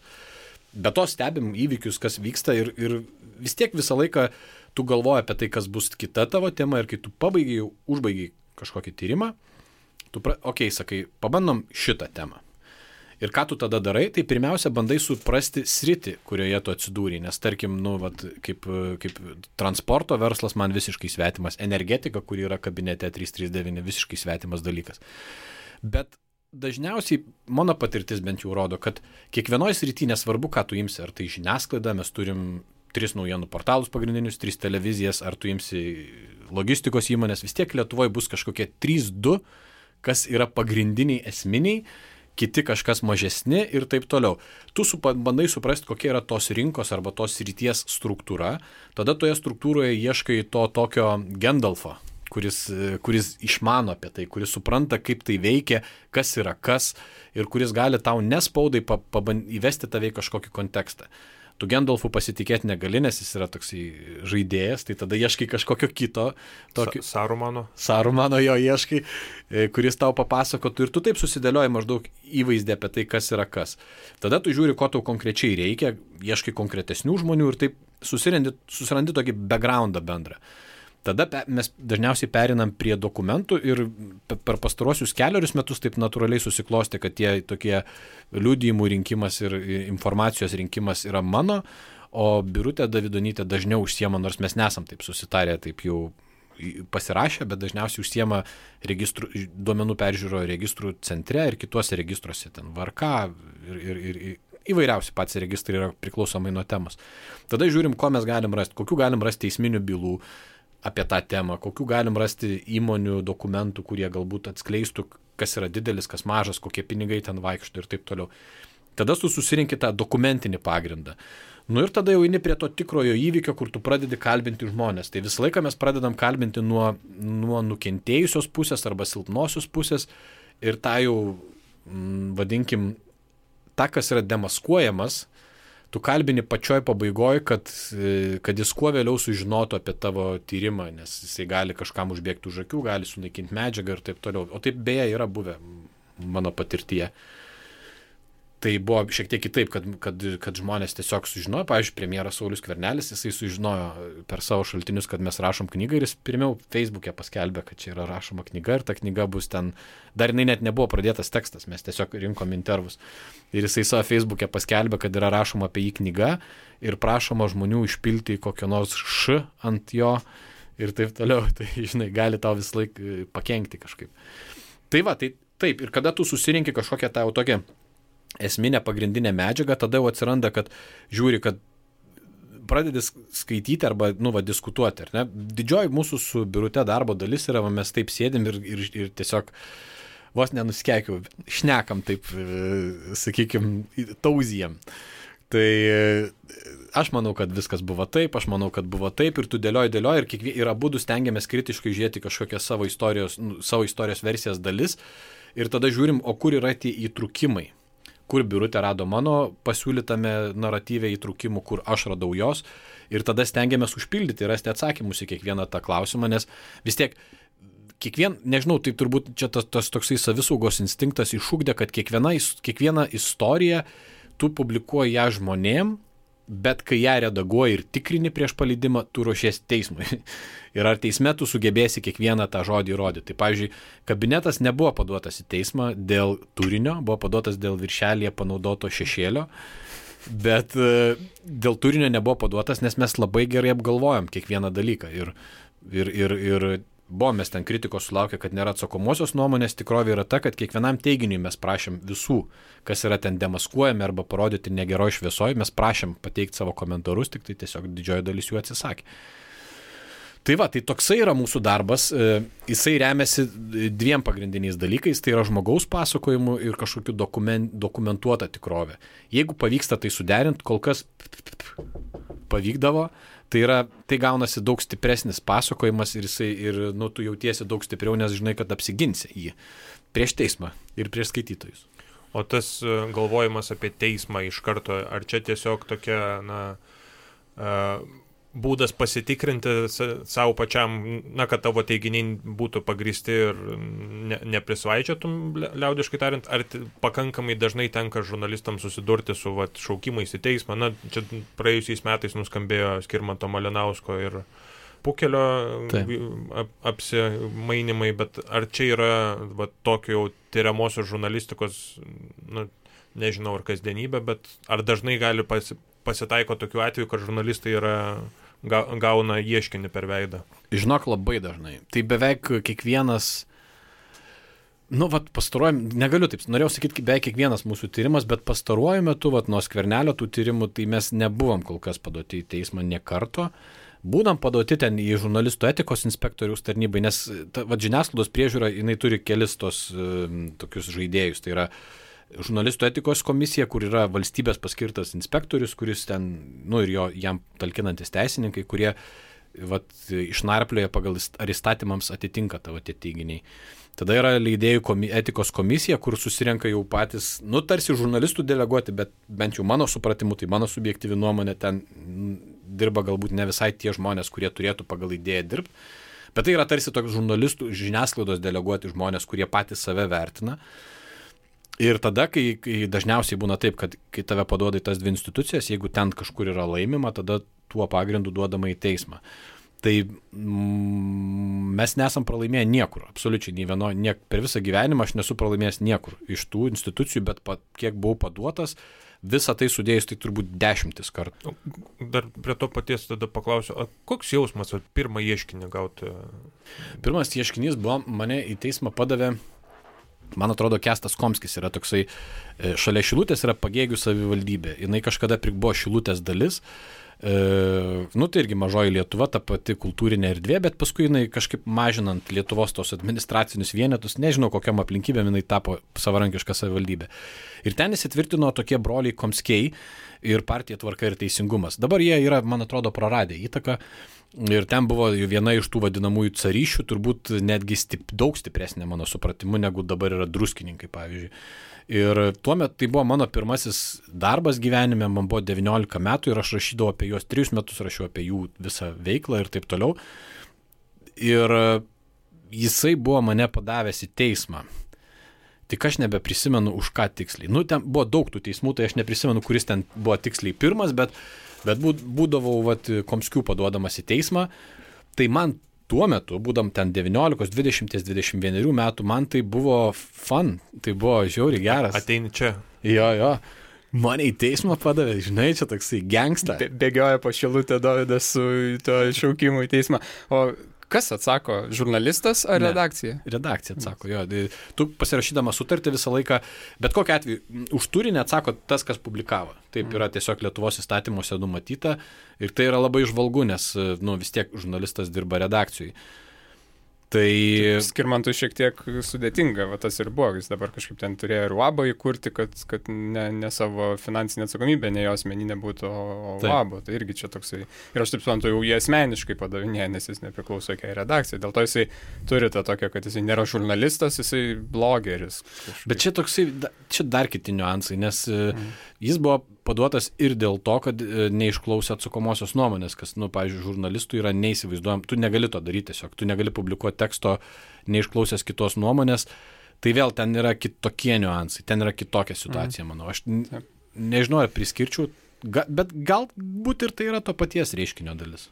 Speaker 2: Be to stebim įvykius, kas vyksta ir vis tiek visą laiką tu galvoji apie tai, kas bus kita tavo tema ir kai tu užbaigiai kažkokį tyrimą, sakai, pabandom šitą temą. Ir ką tu tada darai, tai pirmiausia bandai suprasti sritį, kurioje tu atsidūrei, nes tarkim, kaip transporto verslas man visiškai svetimas, energetika, kuri yra kabinete 339, visiškai svetimas dalykas. Bet dažniausiai mano patirtis bent jau rodo, kad kiekvienoje srityje nesvarbu, ką tu imsi, ar tai žiniasklaida, mes turim 3 naujienų portalus pagrindinius, 3 televizijas, ar tu imsi logistikos įmonės, vis tiek Lietuvoje bus kažkokie 3-2, kas yra pagrindiniai esminiai, kiti kažkas mažesni ir taip toliau. Tu bandai suprasti, kokia yra tos rinkos arba tos srities struktūra, tada toje struktūroje ieškai to tokio Gandalfo, kuris išmano apie tai, kuris supranta, kaip tai veikia, kas yra kas ir kuris gali tau nespaudai įvesti tave į kažkokį kontekstą. Tu Gandalfu pasitikėti negali, nes jis yra toksai žaidėjas, tai tada ieškai kažkokio kito. Sarumano jo ieškai, kuris tau papasakotų ir tu taip susidėlioji maždaug įvaizdį apie tai, kas yra kas. Tada tu žiūri, ko tau konkrečiai reikia, ieškai konkretesnių žmonių ir taip susirandi tokį backgroundą bendrą. Tada mes dažniausiai perinam prie dokumentų ir per pastaruosius 4 metus taip natūraliai susiklostė, kad tie tokie liudijimų rinkimas ir informacijos rinkimas yra mano, o Birutė Davidonytė dažniau užsiema, nors mes nesam taip susitarę, taip jau pasirašę, bet dažniausiai užsiema duomenų peržiūro registrų centre ir kituose registruose, ten VRK ir įvairiausi patys registrai yra priklausomai nuo temos. Tada žiūrim, ko mes galim rasti, kokių galim rasti teisminių bylų apie tą temą, kokių galim rasti įmonių dokumentų, kurie galbūt atskleistų, kas yra didelis, kas mažas, kokie pinigai ten vaikšto ir taip toliau. Tada tu susirinki tą dokumentinį pagrindą. Ir tada jau eini prie to tikrojo įvykio, kur tu pradedi kalbinti žmonės. Tai visą laiką mes pradedam kalbinti nuo nukentėjusios pusės arba silpnosios pusės ir tą jau, vadinkim, tą, kas yra demaskuojamas, tu kalbini pačioj pabaigoje, kad jis kuo vėliau sužinotų apie tavo tyrimą, nes jisai gali kažkam užbėgti už akių, gali sunaikinti medžiagą ir taip toliau. O taip beje yra buvę mano patirtyje. tai buvo šiek tiek kitaip, kad žmonės tiesiog sužinojo, pavyzdžiui, premjeras Saulius Skvernelis, jisai sužinojo per savo šaltinius, kad mes rašom knygą ir jis pirmiau Facebook'e paskelbė, kad čia yra rašoma knyga ir ta knyga bus ten, dar jinai net nebuvo pradėtas tekstas, mes tiesiog rinkom intervus. Ir jisai savo Facebook'e paskelbė, kad yra rašoma apie jį knyga ir prašoma žmonių išpilti kokio nors š ant jo ir taip toliau, tai žinai, gali tau vis laik pakenkti kažkaip. Tai va, tai taip, ir kada tu susirinki kažkokią tą tokią esminę pagrindinę medžiagą, tada jau atsiranda, kad žiūri, kad pradedi skaityti arba, diskutuoti, ar ne? Didžioji mūsų su Birute darbo dalis yra, mes taip sėdim ir tiesiog vos nenuskeikiu, šnekam taip, sakykime, tauzijam. Tai aš manau, kad viskas buvo taip, aš manau, kad buvo taip ir tu dėlioji ir abudu stengiamės kritiškai žiūrėti kažkokią savo istorijos versijas dalis ir tada žiūrim, o kur yra tie įtrūkimai. Kur Birutė rado mano pasiūlytame naratyve įtrūkimų, kur aš radau jos ir tada stengiamės užpildyti ir rasti atsakymus į kiekvieną tą klausimą, nes vis tiek nežinau, tai turbūt čia tas toksai savisaugos instinktas išugdė, kad kiekviena istorija tu publikuoji ją žmonėm, bet kai ją redaguoji ir tikrini prieš paleidimą, tu ruošies teismui. Ir ar teisme tu sugebėsi kiekvieną tą žodį įrodyti. Tai pavyzdžiui, kabinetas nebuvo paduotas į teismą dėl turinio, buvo paduotas dėl viršelyje panaudoto šešėlio, bet dėl turinio nebuvo paduotas, nes mes labai gerai apgalvojom kiekvieną dalyką. Ir mes ten kritikos sulaukę, kad nėra atsakomosios nuomonės, tikrovė yra ta, kad kiekvienam teiginiui mes prašėm visų, kas yra ten demaskuojami arba parodyti negeroj šviesoj, mes prašėm pateikti savo komentarus, tik tai tiesiog didžioji dalis jų atsisakė. Tai va, tai toksai yra mūsų darbas, jisai remiasi dviem pagrindiniais dalykais, tai yra žmogaus pasakojimu ir kažkokiu dokumentuota tikrovė. Jeigu pavyksta tai suderinti, kol kas pavykdavo, tai gaunasi daug stipresnis pasakojimas ir tu jautiesi daug stipriau, nes žinai, kad apsiginsi jį prieš teismą ir prieš skaitytojus.
Speaker 3: O tas galvojimas apie teismą iš karto, ar čia tiesiog tokia, būdas pasitikrinti savo pačiam, kad tavo teiginiai būtų pagristi ir neprisvaičiatum, liaudiškai tariant, ar pakankamai dažnai tenka žurnalistams susidurti su šaukimais į teismą. Čia praėjusiais metais nuskambėjo Skirmanto Malinausko ir Pukelio apsimainimai, bet ar čia yra tokio jau tyriamosios žurnalistikos, nežinau, ar kasdienybė, bet ar dažnai gali pasitaiko tokių atvejų, kad žurnalistai gauna ieškinį per veidą?
Speaker 2: Žinok, labai dažnai. Tai beveik kiekvienas, negaliu taip, norėjau sakyti, beveik kiekvienas mūsų tyrimas, bet pastaruoju metu, nuo Skvernelio tų tyrimų, tai mes nebuvom kol kas paduoti į teismą nė karto. Būdam paduoti ten į žurnalistų etikos inspektoriaus tarnybai, nes žiniasklaidos priežiūra, jinai turi kelis tos tokius žaidėjus. Tai yra žurnalistų etikos komisija, kur yra valstybės paskirtas inspektorius, kuris ten, ir jam talkinantis teisininkai, kurie išnarplioja pagal ar įstatymams atitinka tavo tie teiginiai. Tada yra leidėjų etikos komisija, kur susirenka jau patys, tarsi žurnalistų deleguoti, bet bent jau mano supratimu, tai mano subjektyvi nuomonė, ten dirba galbūt ne visai tie žmonės, kurie turėtų pagal idėją dirbti, bet tai yra tarsi toks žurnalistų žiniasklaidos deleguoti žmonės, kurie patys save vertina. Ir tada, kai dažniausiai būna taip, kad kai tave paduoda į tas dvi institucijas, jeigu ten kažkur yra laimima, tada tuo pagrindu duodama į teismą. Tai mes nesam pralaimėję niekur, absoliučiai per visą gyvenimą aš nesu pralaimėjęs niekur iš tų institucijų, bet kiek buvau paduotas, visą tai sudėjus, tai turbūt 10 kartų.
Speaker 3: Dar prie to paties tada paklausiu, koks jausmas pirmą ieškinį gauti?
Speaker 2: Pirmas ieškinys buvo, mane į teismą padavė, man atrodo, Kęstas Komskis yra toksai, šalia Šilutės yra Pagėgių savivaldybė, jinai kažkada buvo Šilutės dalis, tai irgi mažoji Lietuva, ta pati kultūrinė erdvė, bet paskui jinai kažkaip mažinant Lietuvos tos administracinius vienetus, nežinau kokiam aplinkybėm jinai tapo savarankiška savivaldybė. Ir ten įsitvirtino tokie broliai Komskiai ir partija Tvarka ir Teisingumas. Dabar jie yra, man atrodo, praradę įtaką ir ten buvo viena iš tų vadinamųjų caryšių, turbūt netgi daug stipresnė mano supratimu, negu dabar yra druskininkai, pavyzdžiui. Ir tuo metu tai buvo mano pirmasis darbas gyvenime, man buvo 19 metų ir aš rašydavau apie juos 3 metus, rašiau apie jų visą veiklą ir taip toliau. Ir jisai buvo mane padavęs į teismą. Tik aš nebeprisimenu už ką tiksliai. Nu, ten buvo daug tų teismų, tai aš neprisimenu, kuris ten buvo tiksliai pirmas, bet būdavau Komskių paduodamas į teismą. Tai man tuo metu, būdam ten 19, 20, 21 metų, man tai buvo fun, tai buvo žiauriai geras.
Speaker 3: Ateini čia.
Speaker 2: Jo. Mane į teismą padavė, žinai, čia toksai gangsta.
Speaker 1: Bėgioja po Šilutę Dovydas su to šaukimu į teismą. O kas atsako, žurnalistas ar redakcija?
Speaker 2: Redakcija atsako, jo. Tu pasirašydama sutartį visą laiką, bet kokiu atveju, už turinį atsako tas, kas publikavo. Taip yra tiesiog Lietuvos įstatymuose numatyta ir tai yra labai žvalgu, nes vis tiek žurnalistas dirba redakcijai. Tai
Speaker 1: Skirmantui šiek tiek sudėtinga, tas ir buvo, jis dabar kažkaip ten turėjo ir UABą įkurti, kad ne savo finansinė atsakomybė, ne jo asmeninė būtų, o UABą. Tai irgi čia toksai. Ir aš taip suprantu, jau jie asmeniškai padavinėja, nes jis nepriklauso jokiai redakcijai. Dėl to jisai turi tą tokią, kad jisai nėra žurnalistas, jisai blogeris. Kažkaip.
Speaker 2: Bet čia toksai, čia dar kiti niuansai, nes jis buvo paduotas ir dėl to, kad neišklausė atsakomosios nuomonės, kas, pavyzdžiui, žurnalistų yra neįsivaizduojam, tu negali to daryti tiesiog, tu negali publikuoti teksto neišklausęs kitos nuomonės, tai vėl ten yra kitokie niuansai, ten yra kitokia situacija, manau. Aš nežinau, ar priskirčiau, bet galbūt ir tai yra to paties reiškinio dalis.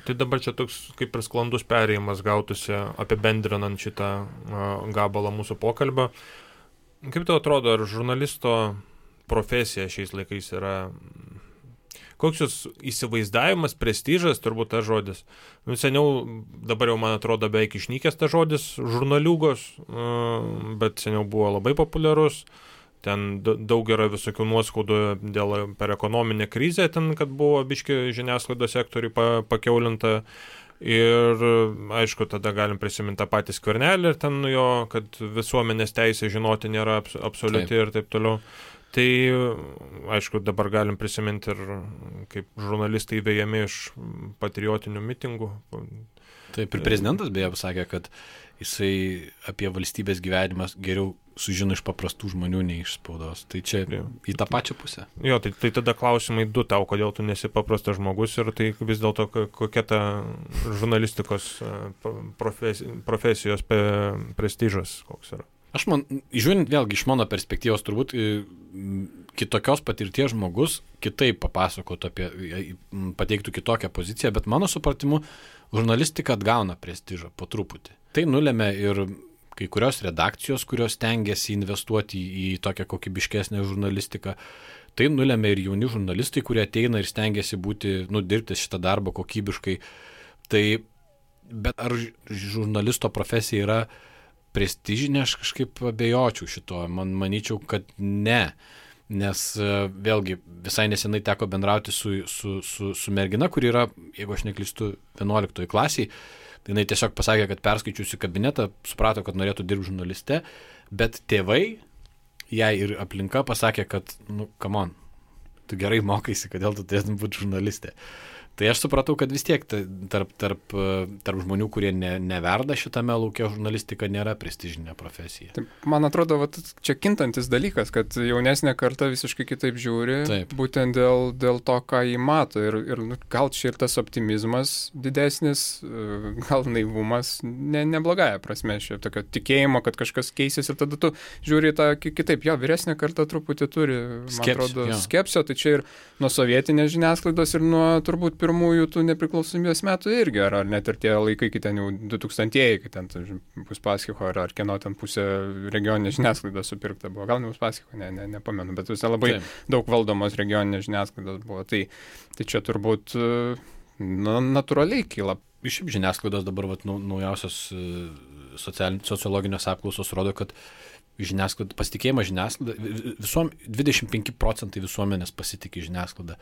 Speaker 3: Tai dabar čia toks kaip ir sklandus perėjimas gautųsi apibendrinant šitą gabalą mūsų pokalbio. Kaip tau atrodo, ar žurnalisto profesija šiais laikais yra, koks jūs įsivaizdavimas, prestižas, turbūt tas žodis. Seniau, dabar jau man atrodo beveik išnykęs tas žodis žurnaliūgos, bet seniau buvo labai populiarus. Ten daug yra visokių nuoskaudų per ekonominę krizę, ten, kad buvo biški žiniasklaidos sektoriui pakeulinta. Ir aišku, tada galim prisiminti tą patį Skvernelį ir ten jo, kad visuomenės teisė žinoti nėra absoliuti ir taip toliau. Tai, aišku, dabar galim prisiminti ir kaip žurnalistai vejami iš patriotinių mitingų.
Speaker 2: Taip, ir prezidentas beje pasakė, kad jisai apie valstybės gyvenimą geriau sužino iš paprastų žmonių, nei iš spaudos. Tai čia į tą pačią pusę.
Speaker 3: Jo, tai tada klausimai du tau, kodėl tu nesi paprastas žmogus ir tai vis dėlto kokia ta žurnalistikos profesijos prestižas koks yra.
Speaker 2: Aš žiūrint vėlgi iš mano perspektyvos, turbūt kitokios patirties žmogus kitaip papasakotų pateiktų kitokią poziciją, bet mano supratimu žurnalistika atgauna prestižą po truputį. Tai nulėmė ir kai kurios redakcijos, kurios stengiasi investuoti į tokią kokybiškesnę žurnalistiką. Tai nulėmė ir jauni žurnalistai, kurie ateina ir stengiasi dirbti šitą darbą kokybiškai. Tai, bet ar žurnalisto profesija yra prestižinė, aš kažkaip abejočiau šito. Manyčiau, kad ne. Nes vėlgi visai nesenai teko bendrauti su mergina, kuri yra, jeigu aš neklystu, 11 klasiai. Jinai tiesiog pasakė, kad perskaičiusi kabinetą, suprato, kad norėtų dirbti žurnaliste, bet tėvai, jai ir aplinka pasakė, kad, come on, tu gerai mokaisi, kodėl tu turėtum būti žurnalistė. Tai aš supratau, kad vis tiek tarp žmonių, kurie neverda šitame lauke, žurnalistika nėra prestižinė profesija.
Speaker 1: Taip, man atrodo, čia kintantis dalykas, kad jaunesnė karta visiškai kitaip žiūri, taip. Būtent dėl to, ką jį mato. Ir gal čia ir tas optimizmas didesnis, gal naivumas, neblogąja prasme, šiaip tokio tikėjimo, kad kažkas keisis ir tada tu žiūri tą kitaip. Jo, vyresnė karta truputį turi, man atrodo, skepsio, tai čia ir nuo sovietinės žiniasklaidos ir nuo turbūt pirmųjų tų nepriklausomybės metų irgi, ar net ir tie laikai, kai ten jau 2000-ieji, kai ten Uspaskicho ar kieno ten pusė regioninės žiniasklaidos supirkta buvo. Gal ne Uspaskicho, nepamenu, bet visai labai daug valdomos regioninės žiniasklaidos buvo. Tai čia turbūt natūraliai kyla.
Speaker 2: Iš žiniasklaidos dabar naujausios sociologinės apklausos rodo, kad pasitikėjimas žiniasklaida, 25% visuomenės pasitikė žiniasklaida.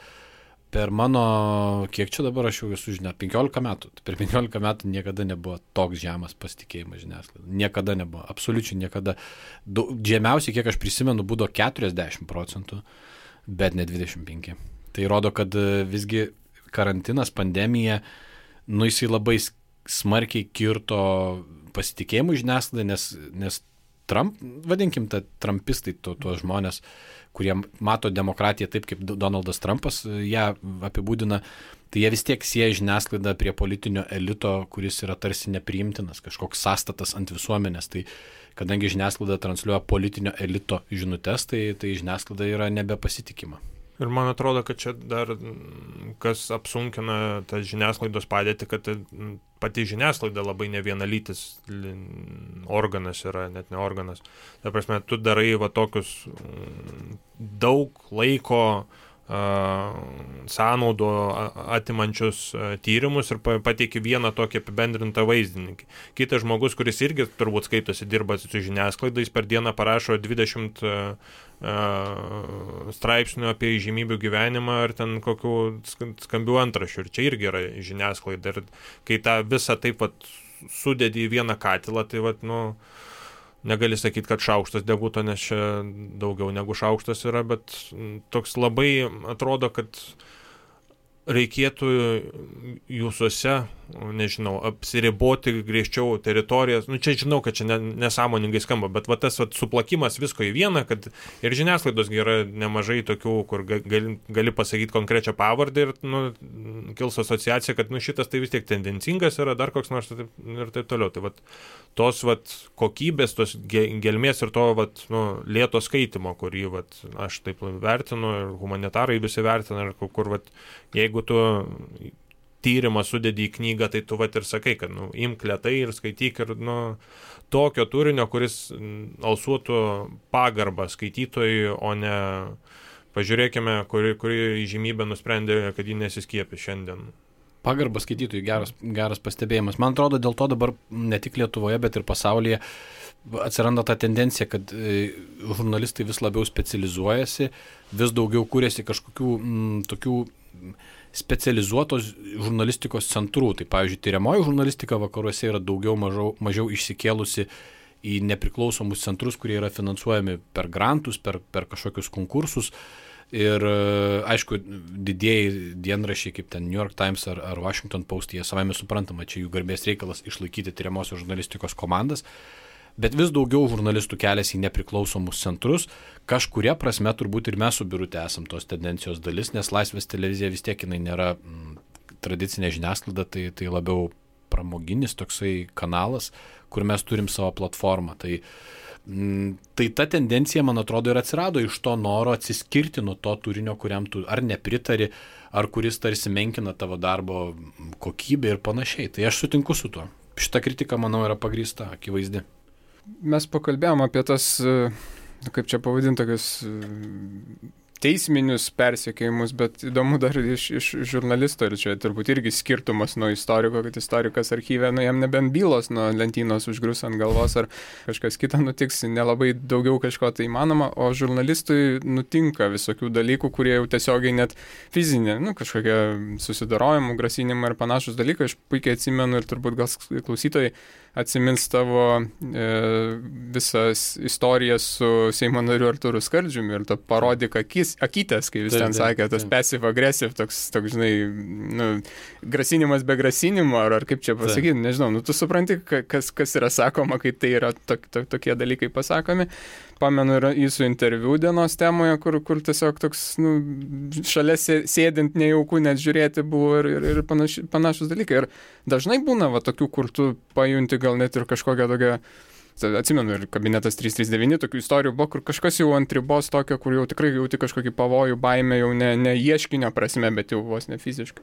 Speaker 2: Per mano, kiek čia dabar aš jau esu 15 metų. Per 15 metų niekada nebuvo toks žemas pasitikėjimas žiniasklaida. Niekada nebuvo, absoliučiai niekada. Žemiausiai, kiek aš prisimenu, būdavo 40%, bet ne 25%. Tai rodo, kad visgi karantinas, pandemija, jisai labai smarkiai kirto pasitikėjimų žiniasklaida, nes vadinkim, trumpistai, tuos žmonės, kurie mato demokratiją taip, kaip Donaldas Trumpas ją apibūdina, tai jie vis tiek sieja žiniasklaidą prie politinio elito, kuris yra tarsi nepriimtinas, kažkoks sąstatas ant visuomenės. Tai kadangi žiniasklaida transliuoja politinio elito žinutes, tai žiniasklaida yra nebepasitikima.
Speaker 3: Ir man atrodo, kad čia dar kas apsunkina tą žiniasklaidos padėtį, kad pati žiniasklaida labai nevienalytis organas yra, net ne organas. Ta prasme, tu darai va tokius daug laiko sąnaudų atimančius tyrimus ir pateiki vieną tokį apibendrintą vaizdinį. Kitas žmogus, kuris irgi turbūt skaitosi, dirba su žiniasklaida, jis per dieną parašo 20 straipsnių apie įžymybių gyvenimą ar ten kokių skambių antraščių. Ir čia irgi yra žiniasklaida. Ir kai tą visą taip vat sudedi į vieną katilą, tai vat, negali sakyti, kad šaukštas deguto, nes čia daugiau negu šaukštas yra, bet toks labai atrodo, kad reikėtų jūsuose, nežinau, apsiriboti griežčiau teritorijas. Čia žinau, kad čia nesąmoningai skamba, bet va tas suplakimas visko į vieną, kad ir žiniasklaidos yra nemažai tokių, kur gali pasakyti konkrečią pavardę ir kils asociacija, kad šitas tai vis tiek tendencingas yra, dar koks nors ir taip toliau. Tai tos kokybės, tos gelmės ir to lėto skaitimo, kurį aš taip vertinu ir humanitarai visi vertina, ir kur jeigu tu tyrimą sudedi į knygą, tai tu ir sakai, kad imk lėtai ir skaityk ir tokio turinio, kuris alsuotų pagarbą skaitytojui, o ne pažiūrėkime, kuri įžymybė nusprendė, kad ji nesiskiepė šiandien.
Speaker 2: Pagarba skaitytojui, geras pastebėjimas. Man atrodo, dėl to dabar ne tik Lietuvoje, bet ir pasaulyje atsiranda ta tendencija, kad žurnalistai vis labiau specializuojasi, vis daugiau kūrėsi kažkokių tokių specializuotos žurnalistikos centrų. Tai pavyzdžiui, tyriamoji žurnalistika vakaruose yra mažiau išsikėlusi į nepriklausomus centrus, kurie yra finansuojami per grantus, per kažkokius konkursus. Ir aišku, didieji dienraščiai kaip ten New York Times ar Washington Post, jie savame suprantama, čia jų garbės reikalas išlaikyti tyriamosios žurnalistikos komandas, bet vis daugiau žurnalistų keliasi į nepriklausomus centrus. Kažkuria prasme turbūt ir mes su Birute esam tos tendencijos dalis, nes Laisvės televizija vis tiek jinai nėra tradicinė žiniasklaida, tai labiau pramoginis toksai kanalas, kur mes turim savo platformą. Tai ta tendencija, man atrodo, ir atsirado iš to noro atsiskirti nuo to turinio, kuriam tu ar nepritari, ar kuris tarsi menkina tavo darbo kokybę ir panašiai. Tai aš sutinku su tuo. Šita kritika, manau, yra pagrįsta, akivaizdi.
Speaker 1: Mes pakalbėjom apie tas, kaip čia pavadinti, tokius teisminius persekiojimus, bet įdomu dar iš žurnalisto, ir čia turbūt irgi skirtumas nuo istoriko, kad istorikas archyve, jam nebent bylos nuo lentynos užgrus ant galvos, ar kažkas kita nutiks, nelabai daugiau kažko tai įmanoma, o žurnalistui nutinka visokių dalykų, kurie jau tiesiogiai net fizinė, kažkokie susidarojimų, grasinimai ir panašus dalykai. Aš puikiai atsimenu ir turbūt gal klausytojai atsimins tavo visas istorijas su Seimo nariu Artūru Skardžiumi ir to parodyk akytės, kai vis ten sakė, tas passive aggressive, toks žinai, grasinimas be grasinimo, ar kaip čia pasakyti, nežinau, tu supranti, kas yra sakoma, kai tai yra tokie dalykai pasakomi. Pamenu ir jūsų interviu dienos temoje, kur tiesiog toks, šalia sėdint nejaukų net žiūrėti buvo ir panašus dalykai. Ir dažnai būna tokių, kur tu pajunti gal net ir kažkokią tokią, atsimenu, ir kabinetas 339, tokių istorijų buvo, kur kažkas jau ant ribos tokio, kur jau tikrai jauti kažkokį pavojų, baimę, jau ne ieškinio prasme, bet jau vos ne fiziškai.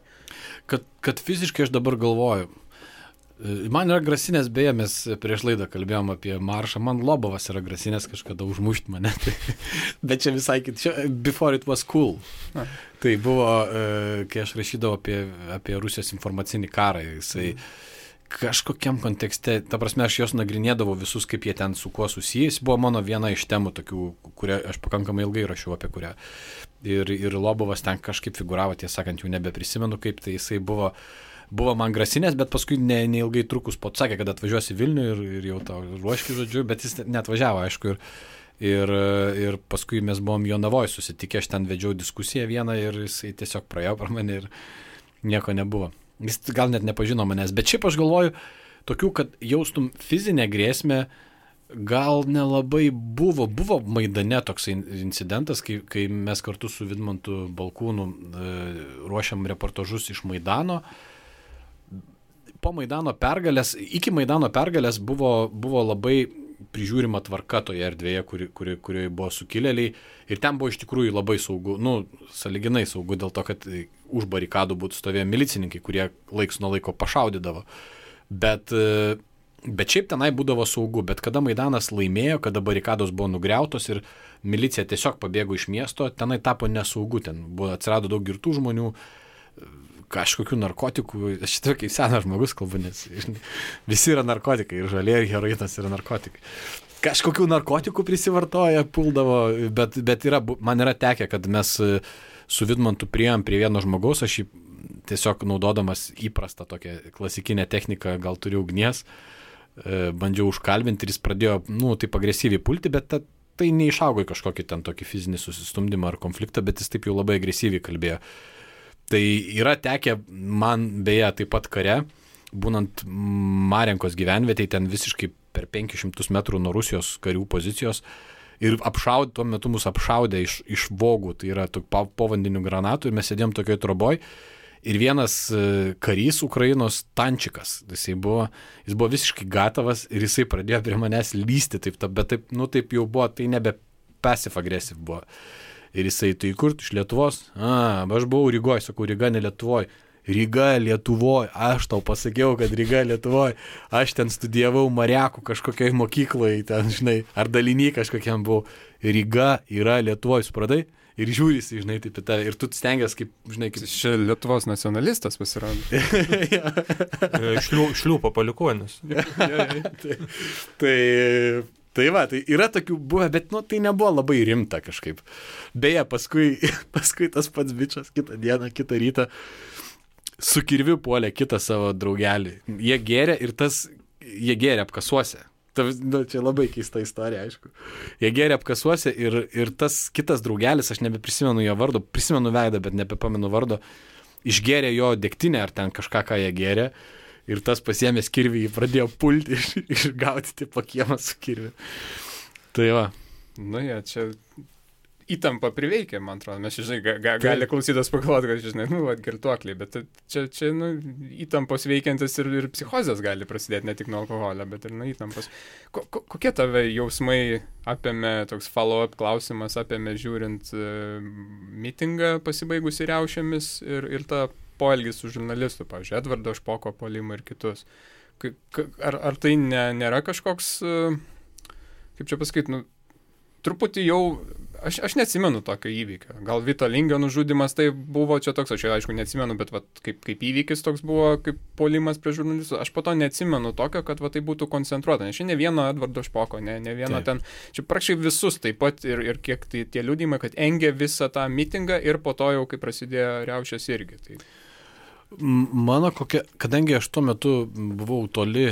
Speaker 2: Kad fiziškai aš dabar galvoju. Man yra grasinės, beje, mes prieš laidą kalbėjom apie maršą, man Lobovas yra grasinės kažkada užmušti mane, bet čia visai before it was cool. Tai buvo, kai aš rašydavau apie Rusijos informacinį karą, jisai kažkokiam kontekste, ta prasme, aš jos nagrinėdavau visus, kaip jie ten su kuo susijęs, buvo mano viena iš temų tokių, kurią aš pakankamai ilgai rašiau apie kurią. Ir Lobovas ten kažkaip figuravo, tiesą sakant, jau nebeprisimenu, kaip tai jisai buvo man grasinės, bet paskui neilgai trukus sakė, kad atvažiuosi Vilnių ir jau tau ruoški, žodžiu, bet jis neatvažiavo, aišku, ir paskui mes buvom Jonavoje susitikę, aš ten vedžiau diskusiją vieną ir jisai tiesiog praėjo per mane ir nieko nebuvo. Jis gal net nepažino manęs, bet šiaip aš galvoju, tokių, kad jaustum fizinę grėsmę, Gal nelabai buvo Maidane toks incidentas, kai mes kartu su Vidmantu Balkūnu ruošiam reportažus iš Maidano. Po Maidano pergalės, iki Maidano pergalės buvo labai prižiūrima tvarka toje erdvėje, kurioje buvo sukilėliai. Ir ten buvo iš tikrųjų labai saugu, sąlyginai saugu, dėl to, kad už barikadų būtų stovėję milicininkai, kurie laiks nuo laiko pašaudydavo. Bet šiaip tenai būdavo saugu, bet kada Maidanas laimėjo, kada barikados buvo nugriautos ir milicija tiesiog pabėgo iš miesto, tenai tapo nesaugu, atsirado daug girtų žmonių, kažkokių narkotikų, aš šitą kaip senas žmogus kalbu, nes visi yra narkotikai, ir žalė, ir heroinas yra narkotikai. Kažkokių narkotikų prisivartoja, puldavo, bet man yra tekę, kad mes su Vidmantu priėjom prie vieno žmogaus, aš jį tiesiog naudodamas įprastą tokią klasikinę techniką, gal turiu ugnies, bandžiau užkalbinti ir jis pradėjo, taip agresyviai pulti, bet tai neišaugo į kažkokį ten tokį fizinį susistumdymą ar konfliktą, bet jis taip jau labai agresyviai kalbėjo. Tai yra tekę man beje taip pat kare, būnant Marenkos gyvenvietėje, ten visiškai per 500 metrų nuo Rusijos karių pozicijos ir tuo metu mus apšaudė iš vogų, tai yra povandinių granatų ir mes sėdėjom tokioj troboj. Ir vienas karys Ukrainos tančikas, jis buvo visiškai gatavas ir jisai pradėjo prie manęs lysti, bet taip jau buvo, tai nebe passive aggressive buvo. Ir jisai, tai kur iš Lietuvos? Aš buvau Rygoj, sakau, Ryga ne Lietuvoj. Ryga Lietuvoj, aš tau pasakiau, kad Ryga Lietuvoj. Aš ten studijavau Mariakų kažkokiai mokykloje, ten, žinai, ar dalinį kažkokiam buvau. Ryga yra Lietuvoj, supratai? Ir žiūrisi, žinai, taip į tave. Ir tu stengiasi, kaip, žinai, kaip...
Speaker 1: Čia Lietuvos nacionalistas pasirodo.
Speaker 3: Šliūpo palikuonis.
Speaker 2: Tai yra tokių buvę, bet tai nebuvo labai rimta kažkaip. Beje, paskui tas pats bičas kitą dieną, kitą rytą su kirviu puolė kitą savo draugelį. Jie gėrė apkasuose. Čia labai keista istorija, aišku. Jie gėrė apkasuose ir tas kitas draugelis, aš nebeprisimenu jo vardo, prisimenu veidą, bet nebepamenu vardo, išgėrė jo degtinę ar ten kažką, ką jie gėrė. Ir tas pasiėmęs kirvį, jį pradėjo pulti ir gaudyti po kiemą su kirviu. Tai va.
Speaker 1: Čia įtampa priveikia, man atrodo. Mes, žinai, gali klausytas pagalvoti, kad, žinai, girtuokliai, bet čia įtampos veikiantis ir psichozės gali prasidėti ne tik nuo alkoholio, bet ir nuo įtampos. Kokie tave jausmai apėmė, toks follow-up klausimas apėmė žiūrint mitingą pasibaigusi riaušėmis ir tą poelgis su žurnalistu, pavyzdžiui, Edvardo Špoko puolimą ir kitus. Ar tai nėra kažkoks, kaip čia pasakyti, truputį jau, aš neatsimenu tokio įvykio. Gal Vito Lingio nužudymas tai buvo čia toks, aš aišku neatsimenu, bet kaip įvykis toks buvo, kaip puolimas prie žurnalistų. Aš po to neatsimenu tokio, kad tai būtų koncentruota. Nes čia ne vieno Edvardo Špoko, ne vieno ten, čia praktiškai visus taip pat ir kiek tai tie liudijimai, kad engė visą tą mitingą ir po to jau, kai prasidėjo riaušės irgi. Tai...
Speaker 2: Kadangi aš tuo metu buvau toli,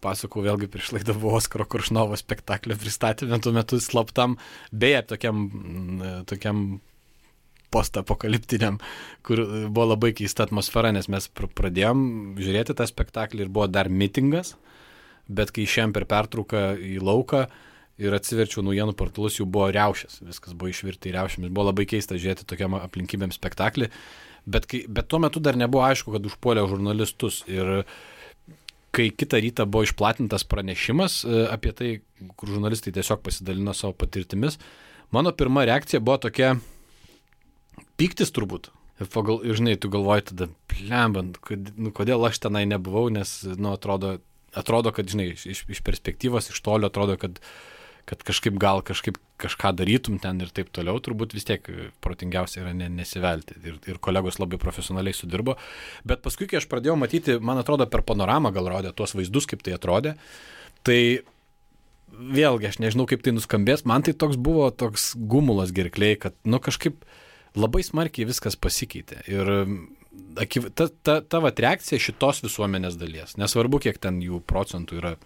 Speaker 2: pasakau vėlgi prieš laidą, buvo Oskaro Koršnovo spektaklio pristatymė, tuo metu slaptam, beje, tokiam postapokaliptiniam, kur buvo labai keista atmosfera, nes mes pradėjom žiūrėti tą spektaklį ir buvo dar mitingas, bet kai išėjom per pertrauką į lauką ir atsiverčiau naujienų portalus, jau buvo riaušės, viskas buvo išvirta į riaušėmis, buvo labai keista žiūrėti tokiam aplinkybėm spektaklį. Bet tuo metu dar nebuvo aišku, kad užpuolė žurnalistus ir kai kitą rytą buvo išplatintas pranešimas apie tai, kur žurnalistai tiesiog pasidalino savo patirtimis, mano pirma reakcija buvo tokia pyktis turbūt. Ir žinai, tu galvoji tada, plembant, kodėl aš tenai nebuvau, nes atrodo, kad, žinai, iš perspektyvos, iš tolio atrodo, kad kažkaip kažką darytum ten ir taip toliau, turbūt vis tiek protingiausia yra nesivelti. Ir kolegos labai profesionaliai sudirbo. Bet paskui, kai aš pradėjau matyti, man atrodo, per panoramą gal rodė tuos vaizdus, kaip tai atrodė, tai vėlgi, aš nežinau, kaip tai nuskambės, man tai buvo toks gumulas gerkliai, kad kažkaip labai smarkiai viskas pasikeitė. Ir ta reakcija šitos visuomenės dalies, nesvarbu, kiek ten jų procentų yra,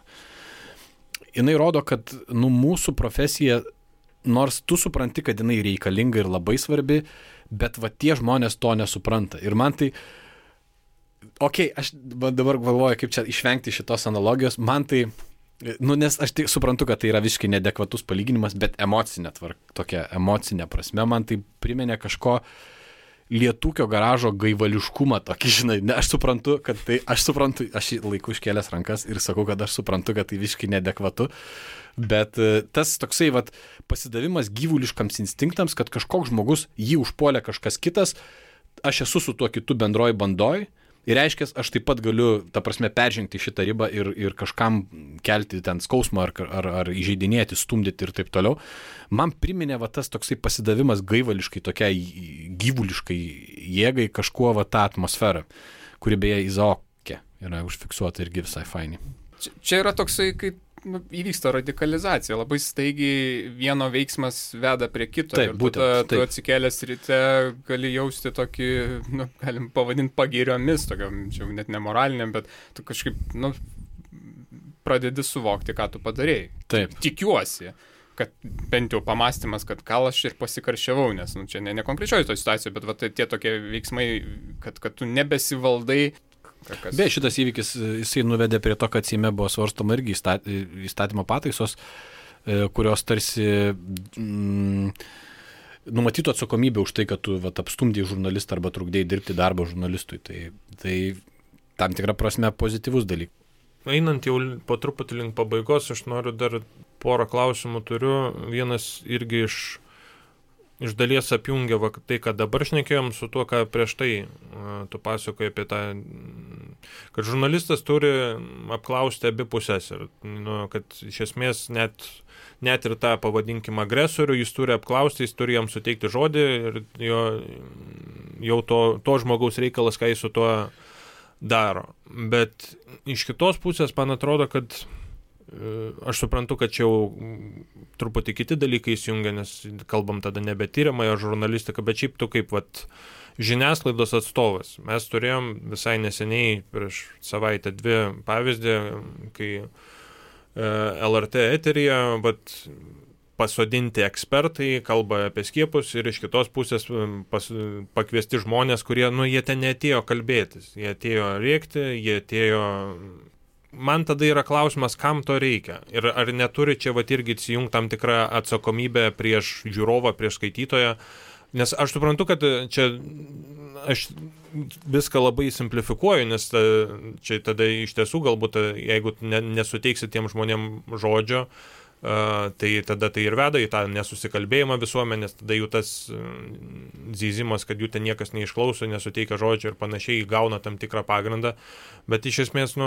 Speaker 2: jinai rodo, kad mūsų profesija, nors tu supranti, kad jinai reikalinga ir labai svarbi, bet tie žmonės to nesupranta. Ir man tai, aš dabar galvoju, kaip čia išvengti šitos analogijos, man tai Nes aš tik suprantu, kad tai yra visiškai neadekvatus palyginimas, bet tokia emocinė prasme man tai priminė kažko lietūkio garažo gaivališkumą tokį, žinai. Aš suprantu, aš laiku iškėlęs rankas ir sakau, kad aš suprantu, kad tai visiškai neadekvatu, bet tas toksai pasidavimas gyvuliškams instinktams, kad kažkoks žmogus jį užpuolė kažkas kitas, aš esu su tuo kitu bendroj bandoj. Ir reiškia, aš taip pat galiu, ta prasme, peržengti šitą ribą ir kažkam kelti ten skausmą ar įžeidinėti, stumdyti ir taip toliau. Man priminė tas toksai pasidavimas gaivališkai, tokiai gyvuliškai jėgai kažkuo tą atmosferą, kuri beje Izaoke yra užfiksuota irgi visai fainiai.
Speaker 1: Čia yra toksai, kaip įvyksta radikalizacija, labai staigiai vieno veiksmas veda prie kito.
Speaker 2: Taip,
Speaker 1: ir
Speaker 2: būtent,
Speaker 1: tu atsikėlęs ryte gali jausti tokį, galim pavadinti pagiriomis, tokiam, čia net nemoraliniam, bet tu kažkaip, pradedi suvokti, ką tu padarėjai.
Speaker 2: Taip.
Speaker 1: Tikiuosi, kad bent jau pamastymas, kad gal aš ir pasikarščiavau, nes čia ne konkrečioji to situacija, bet tie tokie veiksmai, kad tu nebesivaldai.
Speaker 2: Beje, šitas įvykis, jisai nuvedė prie to, kad Seime buvo svarstoma irgi įstatymo pataisos, kurios tarsi numatytų atsakomybę už tai, kad tu apstumdėjai žurnalistą arba trukdėjai dirbti darbą žurnalistui. Tai tam tikra prasme pozityvus dalykas.
Speaker 3: Einant jau po truputį link pabaigos, aš noriu dar porą klausimų turiu. Vienas irgi iš dalies apjungia tai, ką dabar šnekėjom su tuo, ką prieš tai tu pasakoji apie tą, kad žurnalistas turi apklausti abi pusės ir kad iš esmės net ir tą, pavadinkim, agresorių jis turi apklausti, jis turi jam suteikti žodį ir jau to žmogaus reikalas, ką jis su tuo daro. Bet iš kitos pusės man atrodo, kad aš suprantu, kad čia jau truputį kiti dalykai įsijungia, nes kalbam tada nebe tyriamąją žurnalistiką, bet šiaip tu kaip žiniasklaidos atstovas. Mes turėjom visai neseniai, prieš savaitę 2 pavyzdį, kai LRT eteryje pasodinti ekspertai kalba apie skiepus ir iš kitos pusės pakviesti žmonės, kurie, jie ten neatėjo kalbėtis, jie atėjo rėkti, jie atėjo. Man tada yra klausimas, kam to reikia. Ir ar neturi čia irgi įsijungti tam tikrą atsakomybę prieš žiūrovą, prieš skaitytoją. Nes aš suprantu, kad čia aš viską labai simplifikuoju, nes čia tada iš tiesų galbūt, jeigu nesuteiksi tiem žmonėm žodžio, tai tada tai ir veda į tą nesusikalbėjimą visuomenės, tada jų tas zyzimas, kad jų ten niekas neišklauso, nesuteikia žodžio ir panašiai, gauna tam tikrą pagrindą. Bet iš esmės,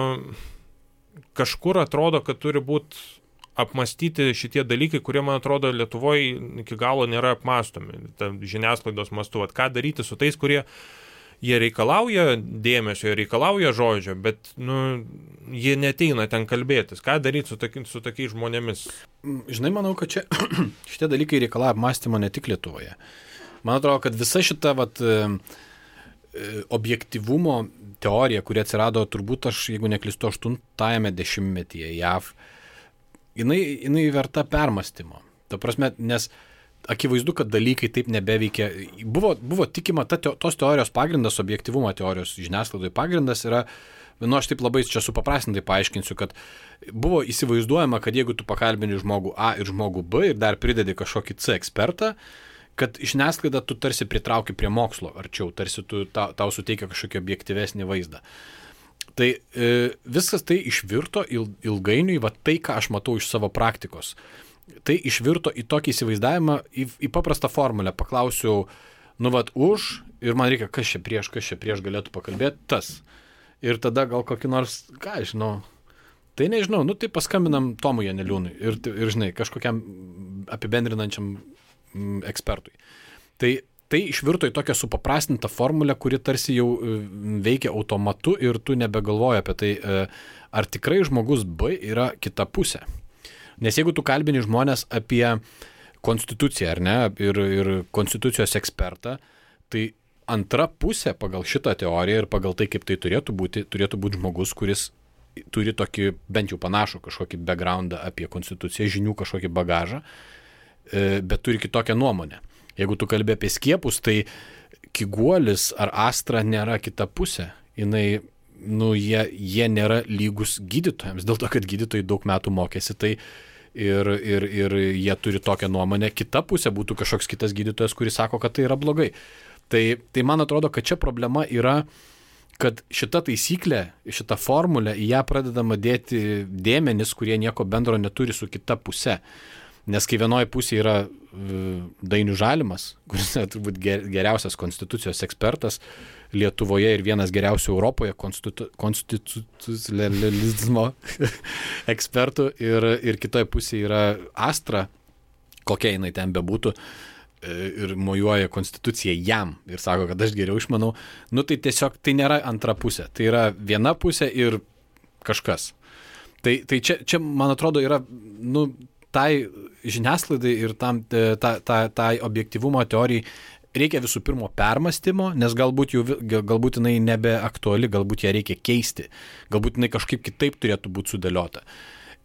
Speaker 3: kažkur atrodo, kad turi būti apmastyti šitie dalykai, kurie, man atrodo, Lietuvoje iki galo nėra apmastomi. Žiniasklaidos mastu, ką daryti su tais, kurie jie reikalauja dėmesio, jie reikalauja žodžio, bet jie neteina ten kalbėtis. Ką daryti su tokiais žmonėmis?
Speaker 2: Žinai, manau, kad čia šitie dalykai reikalauja apmąstymo ne tik Lietuvoje. Man atrodo, kad visa šita objektyvumo teorija, kuri atsirado turbūt, jeigu neklystu, 80-ame dešimtmetyje JAV, jinai verta permąstymo. Ta prasme, nes akivaizdu, kad dalykai taip nebeveikia. Buvo tikima, tos teorijos pagrindas, objektyvumo teorijos žiniasklaidoje pagrindas yra, aš taip labai čia supaprastintai paaiškinsiu, kad buvo įsivaizduojama, kad jeigu tu pakalbini žmogų A ir žmogų B ir dar pridedi kažkokį C ekspertą, kad žiniasklaida tu tarsi pritrauki prie mokslo arčiau, tarsi tau suteikia kažkokį objektyvesnį vaizdą. Tai viskas tai išvirto ilgainiui, tai, ką aš matau iš savo praktikos. Tai išvirto į tokį įsivaizdavimą, į paprastą formulę. Paklausiau, už, ir man reikia, kas čia prieš galėtų pakalbėti, tas. Ir tada gal kokį nors, tai nežinau, tai paskambinam Tomui Janeliūnui ir žinai, kažkokiam apibendrinančiam ekspertui. Tai išvirto į tokią supaprastintą formulę, kuri tarsi jau veikia automatu ir tu nebegalvoji apie tai, ar tikrai žmogus B yra kita pusė. Nes jeigu tu kalbini žmonės apie konstituciją, ar ne, ir konstitucijos ekspertą, tai antra pusė pagal šitą teoriją ir pagal tai, kaip tai turėtų būti žmogus, kuris turi tokį bent jau panašų kažkokį backgroundą apie konstituciją, žinių kažkokį bagažą, bet turi kitokią nuomonę. Jeigu tu kalbė apie skiepus, tai Kiguolis ar Astra nėra kita pusė. Jinai jie nėra lygus gydytojams, dėl to, kad gydytojai daug metų mokėsi, tai ir jie turi tokią nuomonę, kita pusė būtų kažkoks kitas gydytojas, kuris sako, kad tai yra blogai. Tai man atrodo, kad čia problema yra, kad šita taisyklė, šita formulė, į ją pradedama dėti dėmenis, kurie nieko bendro neturi su kita pusė. Nes kai vienoje pusėje yra Dainius Žalimas, kuris yra turbūt geriausias konstitucijos ekspertas Lietuvoje ir vienas geriausių Europoje konstitucionalizmo ekspertų, ir kitoje pusėje yra Astra, kokia jinai ten bebūtų, ir mojuoja konstituciją jam ir sako, kad aš geriau išmanau, tai tiesiog tai nėra antra pusė, tai yra viena pusė ir kažkas. Tai čia man atrodo, yra, tai žiniasklaidai ir tai objektyvumo teorijai reikia visų pirma permąstymo, nes galbūt jinai nebeaktuali, galbūt ją reikia keisti, galbūt jinai kažkaip kitaip turėtų būti sudėliota.